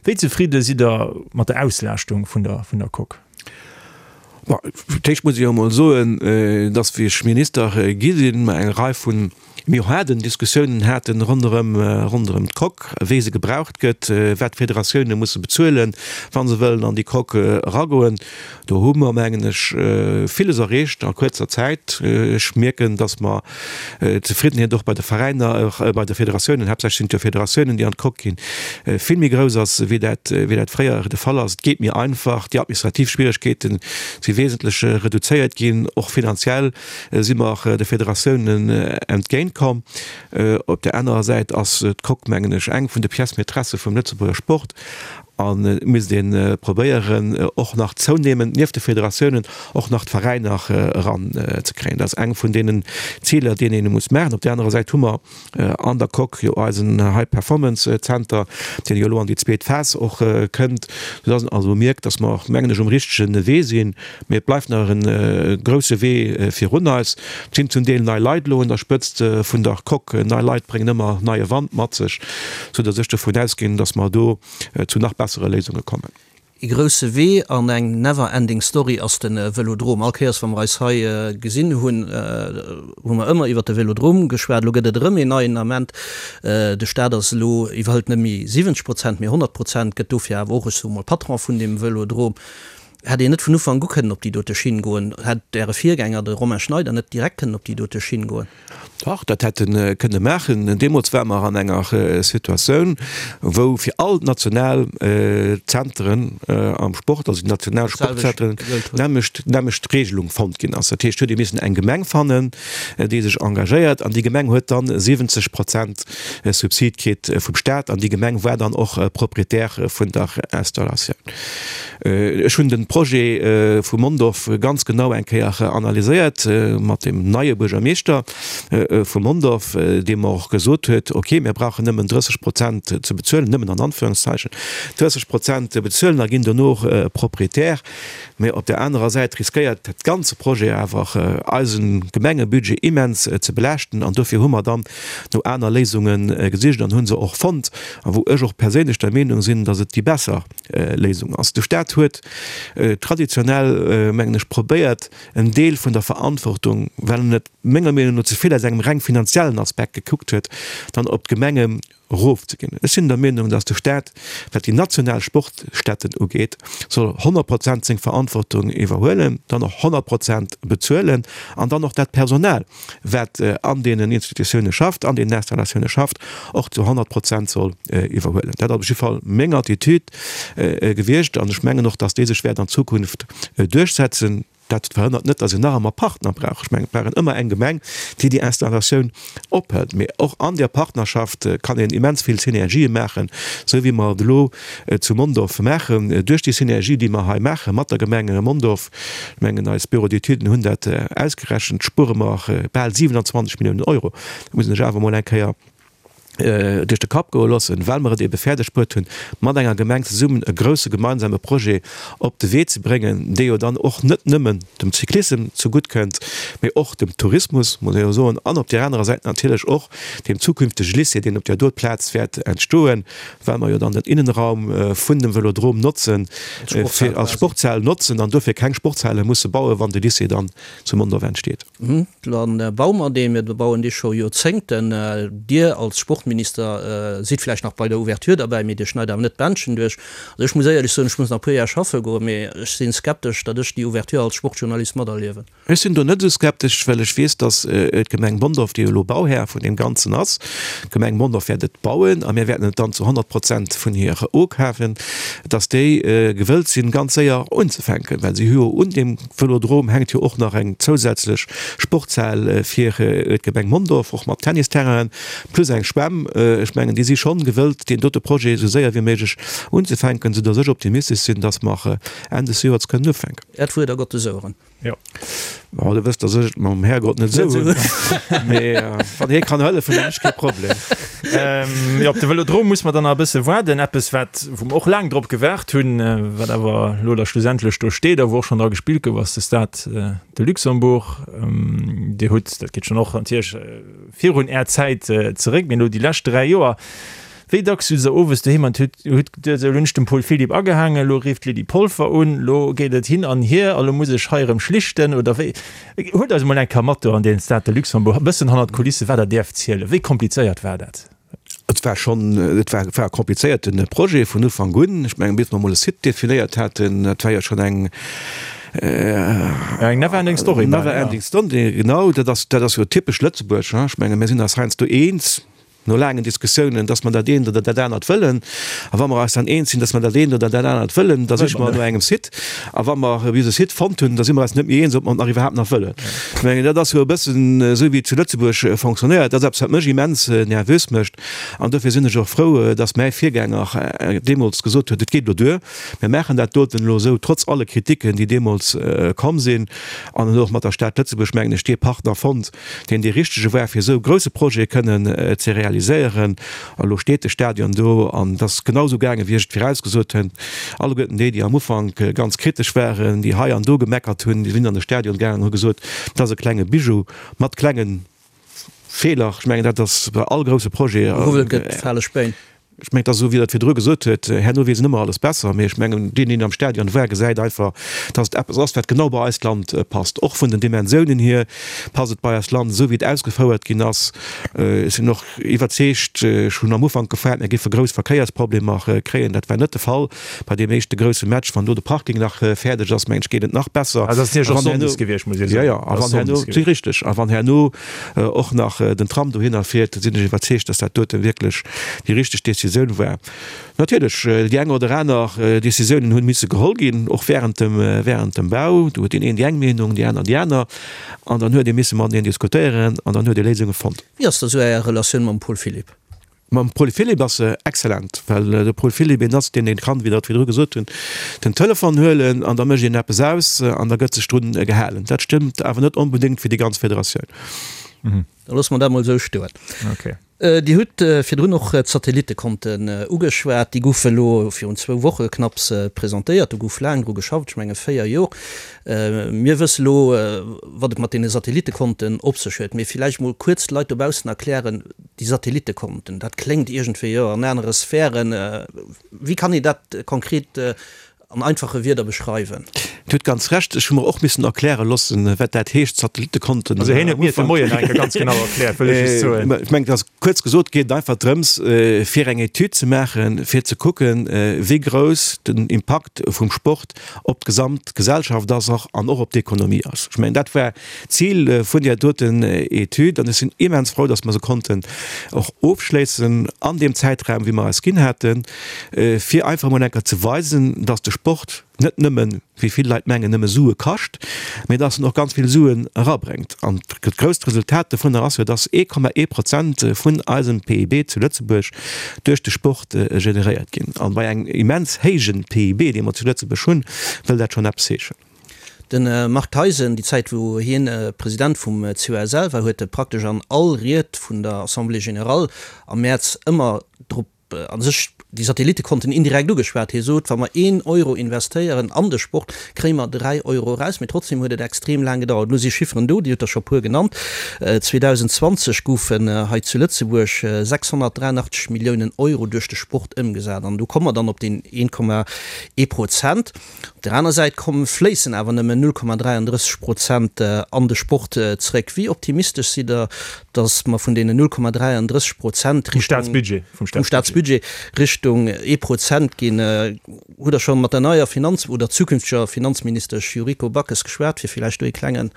Wéi zefridde sidd Der mat der Auslaaschtung vun der vun der Coque? Bon, fir d'éischt muss ech jo emol soen, dass, wéi ech Minister gi sinn, mer eng Rei vun méi haarden Diskussiounen haten ronderëm ronderëm d'Coque, wéi se gebraucht gëtt, wat d'Federatioune musse bezuelen, wa se wëllen an déi Coque eragoen. Do hu mer, mengen ech, villes erreecht a kuerzer Zäit. Ech mierken, dass mer d'Zefriddenheet och bei de Veräiner, bei de Federatiounen, haaptsächlech sinn et jo Federatiounen, déi an d'Coque ginn, vill méi grouss ass, wéi dat, wéi dat fréier de Fall ass. Et geet méi einfach, déi administrativ Schwieregkeete si wesentlech reduzéiert ginn, och finanziell si mer de Federatiounen entgéintkomm. Op där anerer Säit ass d'Coque, mengen ech, eng vun de Pièces maîtresses vum Lëtzebuerger Sport. A misst ee probéieren, och nach zounehmend nieft de Federatiounen och nach d'Veräiner eran ze kréien. Dat ass eng vun deenen Ziler, déi een muss maachen. Op där anerer Säit hu mer an der Coque jo eisen High Performance Center, deen jo elo an déi zweet Phas och kënnt, soudass een also mierkt, dass mer, mengen ech, um richtege Wee sinn. Mee et bleift nach e grousse Wee virun eis. Et sinn zum Deel nei Leit elo un der Spëtzt vun der Coque. Nei Leit bréngen ëmmer neie Wand mat sech, soudass ech dovun ausginn, dass mer do zu nach bessere Léisunge kommen. E grousse Wee an eng never ending story ass de Vëlodrom. All Kéiers wa mer eis hei gesinn hunn, hu mer ëmmer iwwert de Vëlodrom geschwat. Elo gëtt et erëm een neien Ament. De Staat ass elo, iwwerhëlt net méi 70 Prozent, mee 100 Prozent, gëtt dofir awer och, ech soe mol, Patron vun deem Vëlodrom. Hätt een net vun Ufank u kënnen op déi dote Schinn goen? Hätt Äre Virgänger, de Romain Schneider, net direkt kënnen op déi dote Schinn goen? Dach, dat hätt e kënne maachen. Deemools ware mer an enger Situatioun, wou fir all d'national Zenteren am Sport, also déi national Sportzenteren, d'nämmlecht, d'nämmlecht Regelung fonnt ginn ass. Dat heescht, huet ee missen eng Gemeng fannen, déi sech engagéiert, an déi Gemeng huet dann 70 Prozent Subsid kritt vum Staat, an déi Gemeng war dann och Propriétaire vun der Installatioun. Ech hunn de Projet vu Mondorf ganz genau eng Kéier analyséiert mat dem neie Buergermeeschter vu Mondorf, dee mer och gesot huet, ok, mir brauchen nëmmen 30 Prozent ze bezuelen, nëmmen an Anführungszeichen, 30 Prozent bezuelen a ginn dono Proprietär. Mä op där anerer Säit riskéiert dat ganze Projet awer eise Gemengebudget immens ze belaaschten an dofir hu mer dann no aner Léisunge gesicht an hu se och fonnt a wou ech och perséinlech der Meenung sinn, datt et déi besser Léisung ass. De Staat huet traditionell, mengen ech, probéiert, en Deel vun der Verantwortung, well en et menger Meenung no ze vill aus engem reng finanziellen Aspekt gekuckt huet, dann op d'Gemenge erofzeginn. Ech sinn der Meenung, datt de Staat, wat déi national Sportstätten ugeet, soll 100 Prozent seng Verantwortung iwwerhuelen, dann och 100 Prozent bezuelen an dann och dat Personal, wat an deenen Institutioune schafft, an deenen Installatioune schafft, och zu 100 Prozent soll iwwerhuelen. Dat ass op jidde Fall meng Attitude gewiescht an ech mengen och, dass déi sech wäert an Zukunft duerchsetzen. Dat verhënnert net, dass een nach ëmmer Partner brauch. Ech mengen, et brauch een ëmmer eng Gemeng, déi déi Installatioun ophëlt. Mee och an där Partnerschaft kann een immens vill Synergië maachen, esou wéi mer et elo zu Mondorf maachen. Duerch déi Synergie, déi mer hei maache mat der Gemeng Mondorf, Ech mengen, eis Bureaux d'études hunn dat ausgerechent, spuere mer bal 27 Milliounen Euro. Dat muss een sech awer emol eng Kéier duerch de Kapp goe loossen, well mer et ebe fäerdeg bruet hunn, mat enger Gemeng zesummen e grouse gemeinsame Projet op de Wee ze bréngen, dee jo dann och net nëmmen dem Cyclissem zegutt kënnt, mee och dem Tourismus, muss ee jo soen, an op där anerer Säit natierlech och deem zukünftege Lycée, deen op där do Plaz wäert entstoen. well mer jo dann den Innenraum vun dem Vëlodrom notzen, fir als Sportshal notzen an dofir keng Sportshale musse bauen, wann de Lycée dann zu Mondorf entsteet. Dann baue mer deen. Mir bauen dee scho Joerzéngten. Dir als Sportminister sidd vläicht nach bei der Ouverture derbäi, mee Dir schneit awer net d'Bändchen duerch. Also ech muss éierlech soen, ech muss nach e puer Jar schaffe goen, mee ech si skeptesch, datt ech déi Ouverture als Sportjournalist materliewen. Ech sinn do net esou skeptesch, well ech weess, datt d'Gemeng Mondorf, déi jo elo Bauhär vun deem Ganzen ass, d'Gemeng Mondorf wäert et bauen a mir wäerten et dann zu 100 Prozent vun hir okafen, datt déi gewëllt sinn, ganz séier unzefänken, well si hu jo un deem Vëlodrom hänkt jo och nach eng zousätzlech Sportshal fir d'Gemeng Mondorf, och mat Tennisterrainen, plus eng Schwämm. Ech mengen, déi si schonn gewëllt, deen dote Projet esou séier wéi méiglech unzefänken, soudatt ech optimistesch sinn, datt mer Enn des Joers kënnen ufänken. Äert Wuert a Gottes Oueren. Jo. Bon, du wësst, dass ech et mam Härgott net esou hunn. Mee wann hie kann hëllefen, hunn ech kee Problem. Jo, op de Vëlodrom muss mer dann nach e bësse waarden. Eppes, wat, wou mer och laang drop gewaart hunn, wat awer elo da schlussendlech do steet a wou och schonn dra gespillt gouf, ass de Stade de Luxembourg. Dir hutt, dat geet schonn och natierlech virun Är Zäit zeréck, mee elo déi lescht 3 Joer, Wéi dacks sutz der owes doheem an hutt geduet, esou, elo hunn ech dem Paul Philipp agehaangen, elo rifft d'Lydie Polfer un, elo geet et hin an hier a lo muss ech hei erëm schlichten, oder wéi? Huelt eis emol eng Kéier mat do an deen Stade de Luxembourg, e bëssen hannert d'Kulisse, wat der däerft zielen. Wéi komplizéiert war dat? Et war schonn, et war, war e komplizéierte Projet vun Ufank un. Ech mengen, bis mer emol e Site definéiert haten, dat war jo schonn eng, Eng never ending story. Never ending story, genau. Dat ass, dat ass jo typesch Lëtzebuerg, hein. Ech mengen, mir sinn eis heiansdo eens. No laangen Diskussiounen, dass mer dat eent oder dat anert wëllen. A wa mer eis dann eens sinn, dass mer dat eent oder dat anert wëllen, da siche mer no engem Site. A wa mer bis e Site fonnt hunn, da si mer eis net méi eens, ob mer et nach iwwerhaapt nach wëllen. Ech mengen, dat ass jo e bëssen esou, wéi et zu Lëtzebuerg fonctionnéiert. Dat ass eppes, wat mech immens nervös mécht. An dofir sinn ech och frou, dass mäi Virgänger deemools gesot huet, Et geet elo duer, mir maachen dat doten elo esou, trotz alle Kritiken, déi deemools komm sinn. An en huet och mat der Stad Lëtzebuerg, mengen ech, dee Partner fonnt, deen dee richtege war, fir esou e grouse Projet kënnen ze realiséieren. A lo steet de Stadion do an et ass genau esou gaangen, wéi ech et virausgesot hunn. Alleguerten déi, déi am Ufank ganz kritesch waren, déi hei an do gemeckert hunn, déi sinn an de Stadion gaangen an hu gesot, dat ass e klenge Bijou mat klenge Feeler. Ech mengen, dat ass bei all grouse Projet. Gehuwwelt gëtt, fale Spéin. Ech mengen, et ass esou, wéi Der et virdru gesot huet, herno weess een ëmmer alles besser. Mee ech mengen, deen, deen am Stadion war, gesäit einfach, dass et eppes ass, wat genau bei eist Land passt. Och vun den Dimensiounen hier passt et bei eist Land, esou wéi et ausgefouert ginn ass. Ech sinn och iwwerzeegt, ech hunn am Ufank gefaart, mir géife grouss Verkéiersproblemer kréien. Dat war net de Fall bei deem éischte grousse Match. Wann do de Parking nach fäerdeg ass, mengen ech, geet et nach besser. Also, dat ass natierlech och sonndes gewiescht, muss ee soen. Jo, jo, a wann herno, si richteg, a wann herno och nach den Tram dohinner fiert, sinn ech iwwerzeegt, dass dat dote wierklech déi richteg Décisioun war. Natierlech, déi eng oder aner Décisiounen hunn misse geholl ginn, och während dem, während dem Bau. Do huet deen een déi eng Meenung, déi aner déi aner. An dann huet ee misse mateneen diskutéieren an dann huet ee Léisunge fonnt. Wéi ass da sou Är Relatioun mam Paul Philipp? Mam Paul Philipp ass se excellent, well de Paul Philipp een ass, deen een kann, wéi Der et virdru gesot hunn, den Telefon huelen an da mécht een eppes aus an da gëtt sech drun gehalen. Dat stëmmt awer net onbedéngt fir déi ganz Federatioun. Da loosse mer dat mol esou stoen. Dir hutt virdrun och d'Satellittekonten ugeschwat. Déi goufe elo virun zwou Woche knapps presentéiert. Do gouf laang dru geschafft, ech menge 4 Jor. Mir wësse elo, wat et mat deene Satellittekonten op sech huet. Mee villäicht mol kuerz de Leit dobaussen erklären, Déi Satellittekonten, dat kléngt iergendwéi, jo, an anere Sphären. Wéi kann een dat konkret an einfache Wierder beschreiwen? Dir hutt ganz Recht, ech hu mer och missen erkläre loossen, wat dat heescht, Satellittekonten. Also hien huet mir et de Moien nach eng Kéier ganz genau erkläert, wëll ech just soen. Ech mengen, et ass kuerz gesot, geet et einfach drëms, fir eng Etüd ze maachen, fir ze kucken, wéi grouss den Impakt vum Sport op d'gesamt Gesellschaft ass och an och op d'Ekonomie ass. Ech mengen, dat war d'Zil vun där doten Etüd an ech sinn immens frou, dass mer se konnten och ofschléissen an deem Zäitraum, wéi mer eis ginn haten, fir einfach emol eng Kéier ze weisen, dass de Sport net nëmmen, wéi vill Leit mengen, nëmme Sue kascht, mä dass en och ganz vill Suen erabréngt. An dat grousst Resultat dovunner ass jo, dass 1,1 Prozent vun eisem PIB zu Lëtzebuerg duerch de Sport generéiert ginn. An bei engem immens héijen PIB, dee mer zu Lëtzebuerg hunn, wëll dat schonn eppes heeschen. De Marc Theisen, déi Zäit wou hien President vum COSL war, huet praktesch an all Ried vun der Assemblée générale am Mäerz ëmmer drop a sech déi Satellittekonten indirekt ugeschwat. Hie sot, wa mer een Euro investéieren an de Sport, kréie mer 3 Euro eraus. Mee trotzdem huet et extrem laang gedauert. Elo si Chifferen do, Dir hutt der scho puer genannt. 2020 goufen hei zu Lëtzebuerg 683 Milliounen Euro duerch de Sport ëmgesat. An do komme mer dann op deen 1,1 Prozent. Op der aner Säit komm fléissen awer nëmmen 0,33 Prozent an de Sport zeréck. Wéi optimistesch sidd Der, datt mer vun deenen 0,33 Prozent Richtung, vum Staatsbudget Richtung ee Prozent ginn? Hutt Der scho mat der neier Finanz oder zukünfteger Finanzministesch Yuriko Backes geschwat, fir villäicht do ee klengen.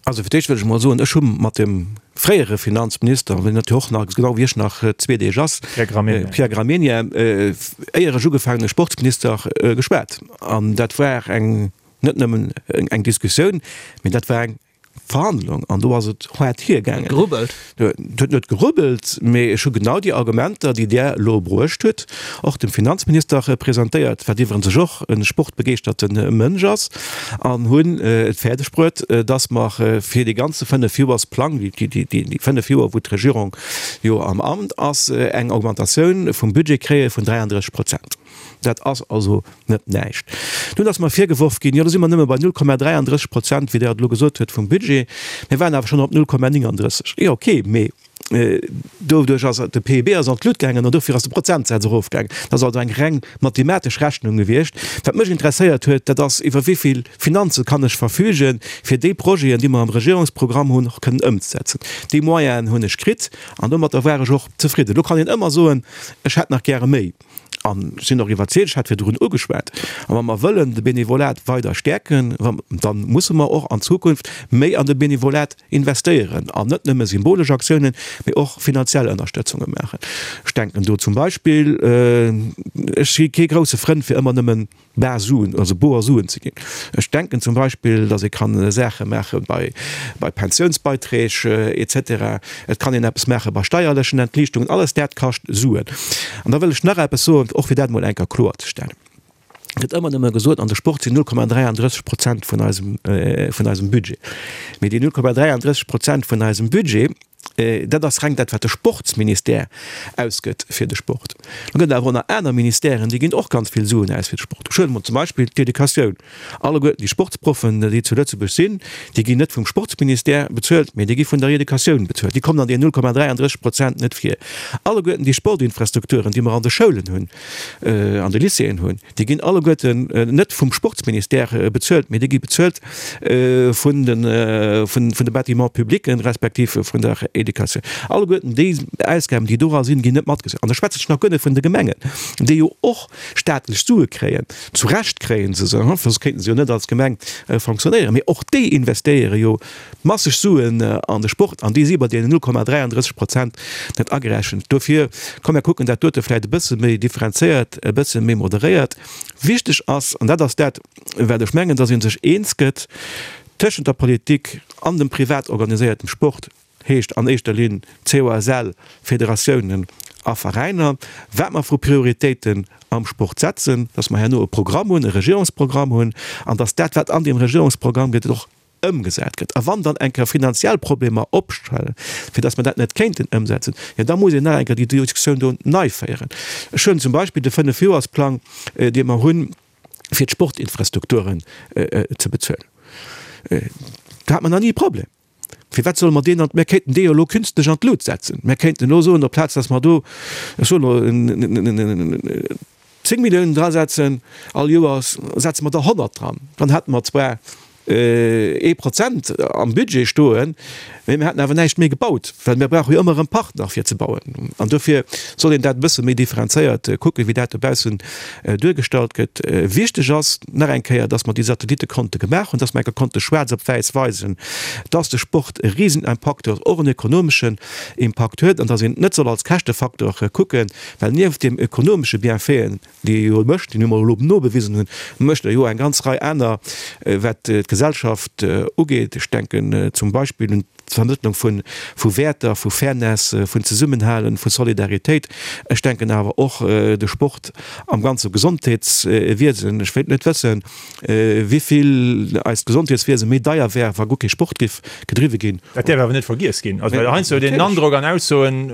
Also fir d'éischt wëll ech emol soen, ech hu mat dem fréiere Finanzminister, deen et jo och nach, genau wéi ech, nach zwee Deeg ass, Pierre Gramegna, éier ech ugefaangen hunn, Sportsminister, geschwat. An dat war eng, net nëmmen eng Diskussioun, mee dat war eng Verhandlung. An do ass et haart hiergaangen. Gerubbelt? Et huet net gerubbelt, mee ech hu genau déi Argumenter, déi Der elo bruecht hutt, och dem Finanzminister presentéiert, wat iwwerens och e sportbegeeschterte Mënsch ass, an hunn et fäerdeg bruet, dass mer fir dee ganze Fënnefjoersplang, déi fënnef Joer, wou d'Regierung jo am Amt ass, eng Augmentatioun vum Budget kréie vun 33 Prozent. Dat ass also net näischt. Dunn ass mer virgeworf ginn, jo do si mer nëmme bei 0,33 Prozent, wéi Der et elo gesot hutt, vum Budget. Mir waren awer schonn op 0,39. Jo, okay, mee doduerch ass de PIB ass an d'Lut gaangen an dofir ass de Prozentsaz erofgaangen. Dat ass also eng reng mathematesch Rechnung gewiescht. Wat mech interesséiert huet, dat ass, iwwer wéi vill Finanze kann ech verfügen, fir déi Projeten, déi mer am Regierungsprogramm hunn, och kënnen ëmzesetzen. Déi Moyenen hunn ech kritt an domatter war ech och zefridden. Elo kann een ëmmer soen, ech hätt nach gäre méi. An ech sinn och iwwerzeegt, ech hat virdrun ugeschwat, a wa mer wëllen de Benevolat weider stäerken, da musse mer och an Zukunft méi an de Benevolat investéieren an net nëmme symbolesch Aktiounen, mee och finanziell Ënnerstëtzunge maachen. Ech denken do zum Beispill, ech si kee grousse Frënd fir ëmmer nëmmen bar Suen, also boer Suen ze ginn. Ech denken zum Beispill, datt ee kann Saache maache bei bei Pensiounsbeiträg et cetera. Et kann een eppes maache bei steierlechen Entliichtungen. Alles dat kascht Suen. An da wëll ech nach eppes soen, och fir dat emol eng Kéier kloerzestellen. Et gëtt ëmmer nëmme gesot, an de Sport sinn 0,33 Prozent vun eisem vun eisem Budget. Mee déi 0,33 Prozent vun eisem Budget. Dat ass reng dat, wat de Sportsministère ausgëtt fir de Sport. Da gëtt et awer och nach aner Ministèren, déi ginn och ganz vill Suen aus fir de Sport. Ech huelen emol zum Beispill d'Educatioun. Alleguerten déi Sportsproffen, déi zu Lëtzebuerg sinn, déi ginn net vum Sportsministère bezuelt, mee déi gi vun der Educatioun bezuelt. Déi kommen an deenen 0,33 Prozent net vir. Alleguerten déi Sportinfrastrukturen, déi mer an de Schoulen hunn, an de Lycéeën hunn, Déi ginn alleguerten net vum Sportsministère bezuelt, mee déi gi bezuelt vun de, vun de Bâtiments publics respektiv vun der Educatioun. Alleguerten déi Ausgaben, déi dora sinn, ginn net matgezählt. An da schwätze ech nach guer net vun de Gemengen, déi jo och staatlech Sue kréien. Zu Recht kréie se se, soss kéinte se jo net als Gemeng fonctionnéieren. Mee och déi investéiere jo masseg Suen an de Sport an déi si bei deenen 0,33 Prozent net agerechent. Dofir, komm mir kucken dat dote vläicht e bësse méi differenzéiert, e bësse méi moderéiert. Wichteg ass, an dat ass dat, wat ech mengen, dass ee sech eens gëtt tëschent der Politik an dem privat organiséiertem Sport, heescht an éischter Linn COSL, Federatiounen a Veräiner, wat mer vu Prioritéiten am Sport setzen, dass mer herno e Programm hunn, e Regierungsprogramm hunn, an dass dat, wat an deem Regierungsprogramm gëtt, och ëmgesat gëtt. A wann dann eng Kéier finanziell Problemer opstellen, fir datt mer dat net kéinten ëmsetzen, jo da muss een nach eng Kéier déi Diskussioun do nei féieren. Ech hunn zum Beispill de Fënnefjoersplang, dee mer hunn, fir d'Sportinfrastrukturen ze bezuelen. Do hat mer nach ni e Problem. Firwat solle mer deen an, mir kéinten dee jo elo künstlech an d'Lut setzen. Mir kéinten elo soen, aplaz datt mer do, ech soen elo, 10 Milliounen drasetzen all Joers, setze mer der 100 dran. Dann hätte mer zwar ee Prozent am Budget stoen, mee mir hätten awer näischt méi gebaut, well mir brauche jo ëmmer erëm Partner fir ze bauen. An dofir soll een dat e bësse méi differenzéiert kucken, wéi dat dobaussen duergestallt gëtt. Wichteg ass nach eng Kéier, dass mer déi Satellittekonte gemaach hunn, dass mer eng Kéier konnte schwaarz op wäiss weisen, dass de Sport e Risenimpakt huet, och en ekonomeschen Impakt huet an dass een et net soll als Käschtefaktor kucken, Well nieft deem ökonomesche Bienfaiten, déi e jo mécht, déi mer elo nobewisen hunn, mécht e jo eng ganz Rei aner, wat d'Gesellschaft ugeet. Ech denken zum Beispill un d'Vermëttlung vu Wäerter, vu Fairness, vun Zesummenhalen, vu Solidaritéit. Ech denken awer och de Sport am ganze Gesondheetswiesen. Ech wéilt net wëssen, wéivill eist Gesondheetswiese méi deier wär, wa guer kee Sport géif gedriwwe ginn. Dat däerf awer net vergiess ginn. Also well heiansdo huet een den Androck an Aussoen,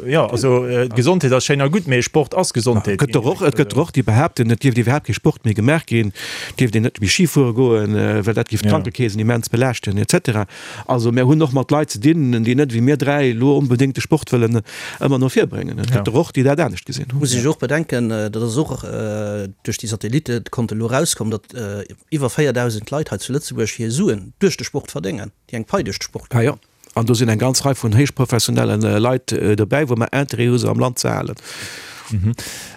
jo also Gesondheet ass schéin a gutt, mee Sport ass Gesondheet. Et gëtt der och, et gëtt der och, déi behaapten, et dierft iwwerhaapt kee Sport méi gemaach ginn, et dierft een net méi Ski fuere goen, well dat géif d'Krankekeesen immens belaaschten et cetera. Also mär hunn och mat Leit ze dinn, déi net wéi mir 3 elo onbedéngt de Sport wëllen ëmmer no vir bréngen. Et gëtt der och, déi dat anescht gesinn hunn. Muss ech och bedenken, dat ass och duerch déi Satellittekonte elo erauskomm, datt iwwer 4.000 Leit hei zu Lëtzebuerg hir Suen duerch de Sport verdéngen, déi eng Pai duerch de Sport kréien. An do sinn eng ganz Rei vun héichprofessionelle Leit dobäi, wou mer Interêt hu se am Land ze halen.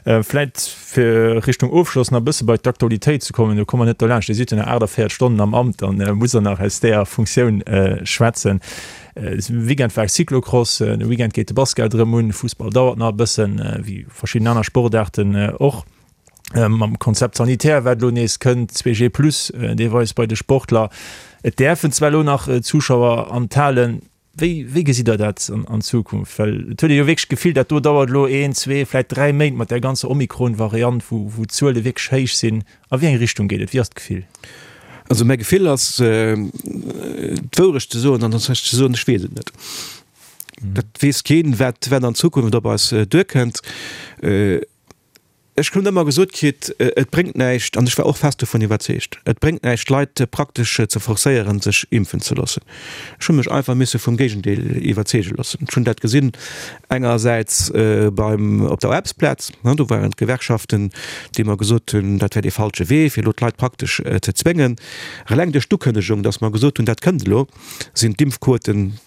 Vläit fir Richtung Ofschloss nach e bësse bei d'Aktualitéit ze kommen, do komme mer net dolaanscht, Dir sidd jo nach 48 Stonnen am Amt, dann musst Der nach aus där Funktioun schwätzen. Weekend war Cyclocross, de Weekend geet de Basket erëm un, Fussball dauert nach e bëssen, wéi verschidden aner Sportaarten och. Mam Konzept sanitaire, wat elo nees kënnt, 2G plus deelweis bei de Sportler. Et däerfen zwar elo nach Zuschauer an d'Halen. Wéi, wéi gesitt Der dat an Zukunft? Well et huet ee jo wierklech d'Gefill, dat do dauert elo een, zwee, vläicht dräi Méint mat där ganzer Omikron-Variant, wou, wou d'Zuele wierklech héich sinn. A wéi eng Richtung geet et? Wéi ass d'Gefill? Also mäi Gefill ass, d'Wourecht ze soen, an dat heescht ze soen, ech weess et net. Dat weess keen, wat, wat an Zukunft op eis duerkënnt. Ech hunn ëmmer gesot kritt, et bréngt näischt, an ech war och fest dovun iwwerzeegt, et bréngt näischt d'Leit praktesch ze forcéieren, sech impfen ze loossen. Ech hu mech einfach misse vum Géigendeel iwwerzeege loossen. Ech hunn dat gesinn engersäits beim, op der Aarbechtsplaz, do waren d'Gewerkschaften, déi mer gesot hunn, dat wär dee falsche Wee, fir elo d'Leit praktesch ze zwéngen. Eleng duerch d'Ukënnegung, datt mer gesot hunn, dat kënnt elo, sinn d'Impfquoten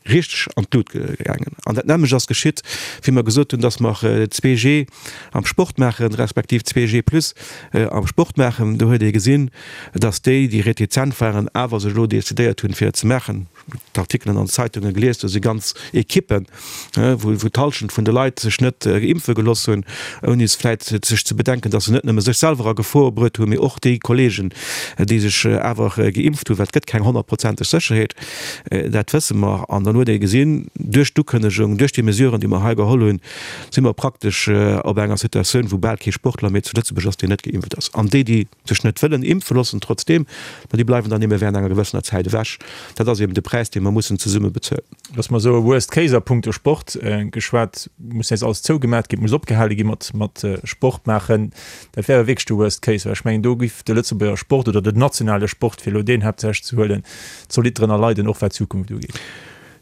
richteg an d'Lut gaangen. An dat nämmlecht ass geschitt, wéi mer gesot hunn, dass mer 2G am Sport maachen, respektiv 2G plus am Sport maachen. Do huet ee gesinn, dass déi, déi retizent waren, awer sech elo decidéiert hunn, fir et ze maachen. D'Artikelen an den Zeitunge gelies, do si ganz Ekippen, wou d'Hallschent vun de Leit sech net impfe gelooss hunn, ouni vläit sech ze bedenken, dass se net nëmme sech selwer a Gefor bruet hunn, mee och déi Kollegen, déi sech awer geimpft hunn, well et gëtt keng honnertprozenteg Sécherheet, dat wësse mer. An dann huet ee gesinn, duerch d'Ukënnegung, duerch déi Mesuren, déi mer hei geholl hunn, si mer praktesch op enger Situatioun, wou bal kee Sportler méi zu Lëtzebuerg ass, deen net geimpft ass. An déi, déi sech net wëllen impfe loossen trotzdeem, ma déi bleiwen dann ebe während enger gewëssener Zäit ewech. Dat ass eben de Präis. Präis, dee mer mussen zesumme bezuelen. Dass mer esou e Worst Case a punkto Sport geschwat, muss nees alles zougemat ginn, et muss opgehale gi mat mat Sport maachen, dat wär jo wierklech de Worst Case, well ech mengen, do giff de Lëtzebuerger Sport oder den nationale Sport, fir elo deen haaptsächlech ze huelen, zolidd drënner leiden, och wat d'Zukunft ugeet.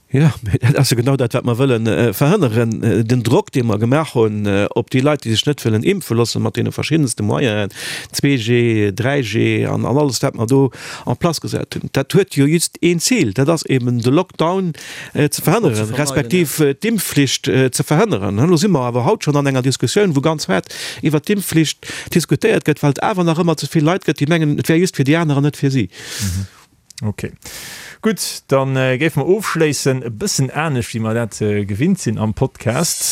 Jo, mee dat ass jo genau dat, wat mer wëlle verhënneren. Den Drock, dee mer gemaach hunn op déi Leit, déi sech net wëllen impfe loossen, mat deene verschiddenste Moyenen, 2G, 3G an alles, wat mer do en place gesat hunn, dat huet jo just een Zil, dat ass eben de Lockdown ze verhënneren, respektiv d'Impfflicht ze verhënneren. Elo si mer awer haut schonn an enger Diskussioun, wou ganz haart iwwert d'Impfflicht diskutéiert gëtt, well et awer nach ëmmer ze vill Leit gëtt, déi mengen, et wär just fir déi aner an net fir si. Ok. Gutt, da géife mer ofschléissen, e bëssen anescht wéi mer dat gewinnt sinn am Podcast.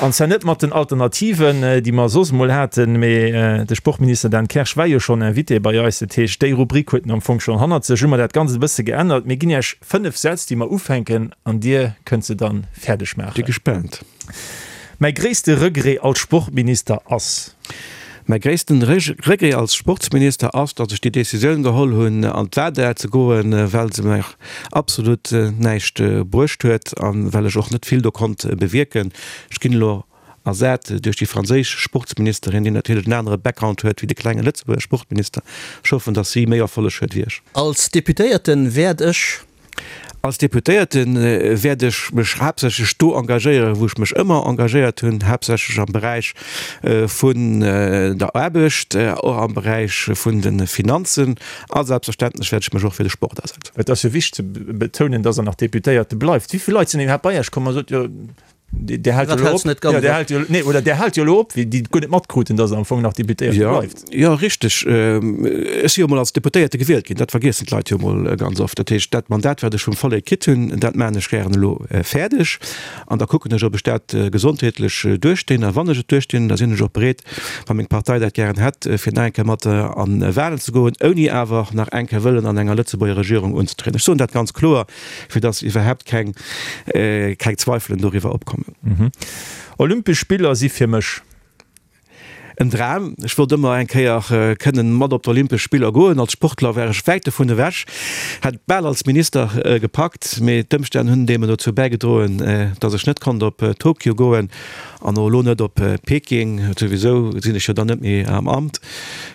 An zwar net mat den Alternativen, déi mer soss emol haten, mee de Sportminister Dan Kersch war jo schonn Invité bei eis. Dat heescht, déi Rubrik huet en am Fong schonn hannert sech. Hu mer dat Ganzt e bësse geännert. Mir ginn Iech 5 Sätz, déi mer ufänken, an Dir kënnt se dann fäerdeg maachen. Bi gespaant. Mäi gréisste Regret als Sportminister ass. Mäi gréissten Regret als Sportsminister ass, datt ech déi Décisioun geholl hunn an d'WADA ze goen, well se mer absolut näischt bruecht huet a well ech och net vill do konnt bewierken. Ech ginn elo ersat duerch déi franséisch Sportsministerin, déi natierlech en anere Background huet wéi de klenge Lëtzebuerger Sportminister. Ech hoffen, datt si méi Erfolleg huet wéi ech. Als Deputéierte wäert ech. Als Deputéierte wäert ech mech haaptsächlech do engagéieren, wou ech mech ëmmer engagéiert hunn, haaptsächlech am Beräich vun der Aarbecht, och am Beräich vun de Finanzen a selbstverständlech wäert ech mech och fir de Sport asetzen. Et ass jo wichteg ze betounen, dass Der nach Deputéierte bleift. Wéi vill Leit sinn iwwerhaapt bei Iech komm a sot, jo, Dir haalt jo elo op, jo, Dir haalt jo, nee, oder Dir haalt jo elo op, wéi déi guer net matkruten, datt Der am Fong nach Deputéierte bleift. Jo, richteg. Ech si jo emol als Deputéierte gewielt ginn, dat vergiessen d'Leit jo emol ganz oft. Dat heescht, dat Mandat, wat ech vum Vollek kritt hunn, dat maachen ech gären elo fäerdeg an da kucken ech, ob ech dat gesondheetlech duerchstinn. A wann ech et duerchstinn, da sinn ech och bereet, wa meng Partei dat gären hätt, fir nach eng Kéier mat an Wahlen ze goen, ouni awer nach eng Kéier wëllen an enger Lëtzebuerger Regierung unzetrieden. Ech soen dat ganz kloer. fir dass iwwerhaapt keng keng Zweifelen doriwwer opkommen. Olympesch Spiller si fir mech. En Dram. Ech wollt ëmmer eng Kéier kënnen mat op d'Olympesch Spiller goen. Als Sportler war ech wäit dovun ewech, hätt et bal als Minister gepackt, mee d'Ëmstänn hunn deemno dozou bäigedroen, dass ech net konnt op Tokio goen an och elo net op Peking. Souwisou sinn ech jo dann net méi am Amt.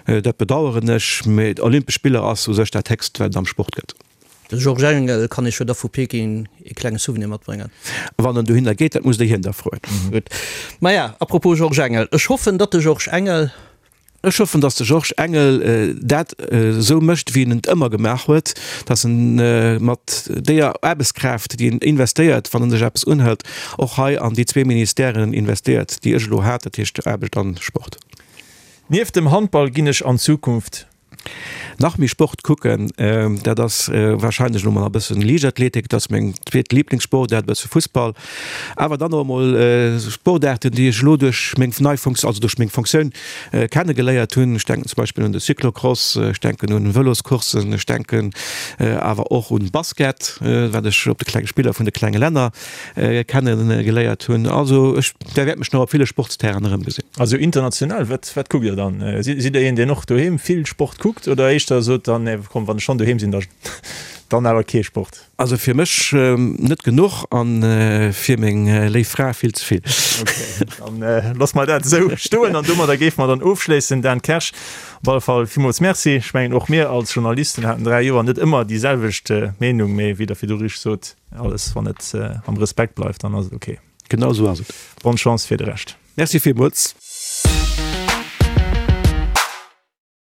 Dat bedaueren ech, mee d'Olympesch Spiller ass u sech dat Héchst, wat et am Sport gëtt. De Georges Engel kann Iech jo da vu Peking ee klenge Souvenir matbréngen. Wann en dohinner geet, dat musst Der hien da froen. Gutt. Maja, à propos Georges Engel, ech hoffen, datt de Georges Engel. Ech hoffen, datt de Georges Engel dat esou mécht, wéi en et ëmmer gemaach huet, datt en mat deeër Aarbechtskraaft, déi en investéiert, wann en sech eppes unhëlt, och hei an déi zwee Ministèren investéiert, déi ech elo hat, dat heescht Aarbecht an Sport. Nieft dem Handball ginn ech an Zukunft Nach méi Sport kucken, dat ass wahrscheinlech elo mol e bëssen Liichtathletik, dat ass meng zweet Liblingssportaart, e bësse Fussball, awer dann och emol Sportaarten, déi ech elo duerch meng nei Fonktioun, also duerch meng Fonctioun kenne geléiert hunn. Ech denken zum Beispill un de Cyclocross, ech denken un Vëloscourssen, ech denken awer och un Basket, wat ech op de klenge Spiller vun de klenge Länner kenne geléiert hunn. Also ech Der wäert mech nach op ville Sportsterrainen erëmgesinn. Also international, wat, wat kuckt Dir dann? Sidd Dir een, deen och doheem vill Sport kuckt oder éischter sot dann, nee komm, wann ech schonn doheem sinn, da dann awer kee Sport? Also fir mech net genuch an fir meng léif Fra vill ze vill. Okay, dann loosse mer dat esou stoen an domadder géife mer dann ofschléissen. Dan Kersch, op alle Fall villmools Merci. Ech mengen och mir als Journalisten haten 3 Joer net ëmmer déi selwecht Meenung, mee wéi Der virdu richteg sot, alles wann et am Respekt bleift, dann ass et okay. Genau esou ass et. Bonne Chance fir de Rescht. Merci villmools.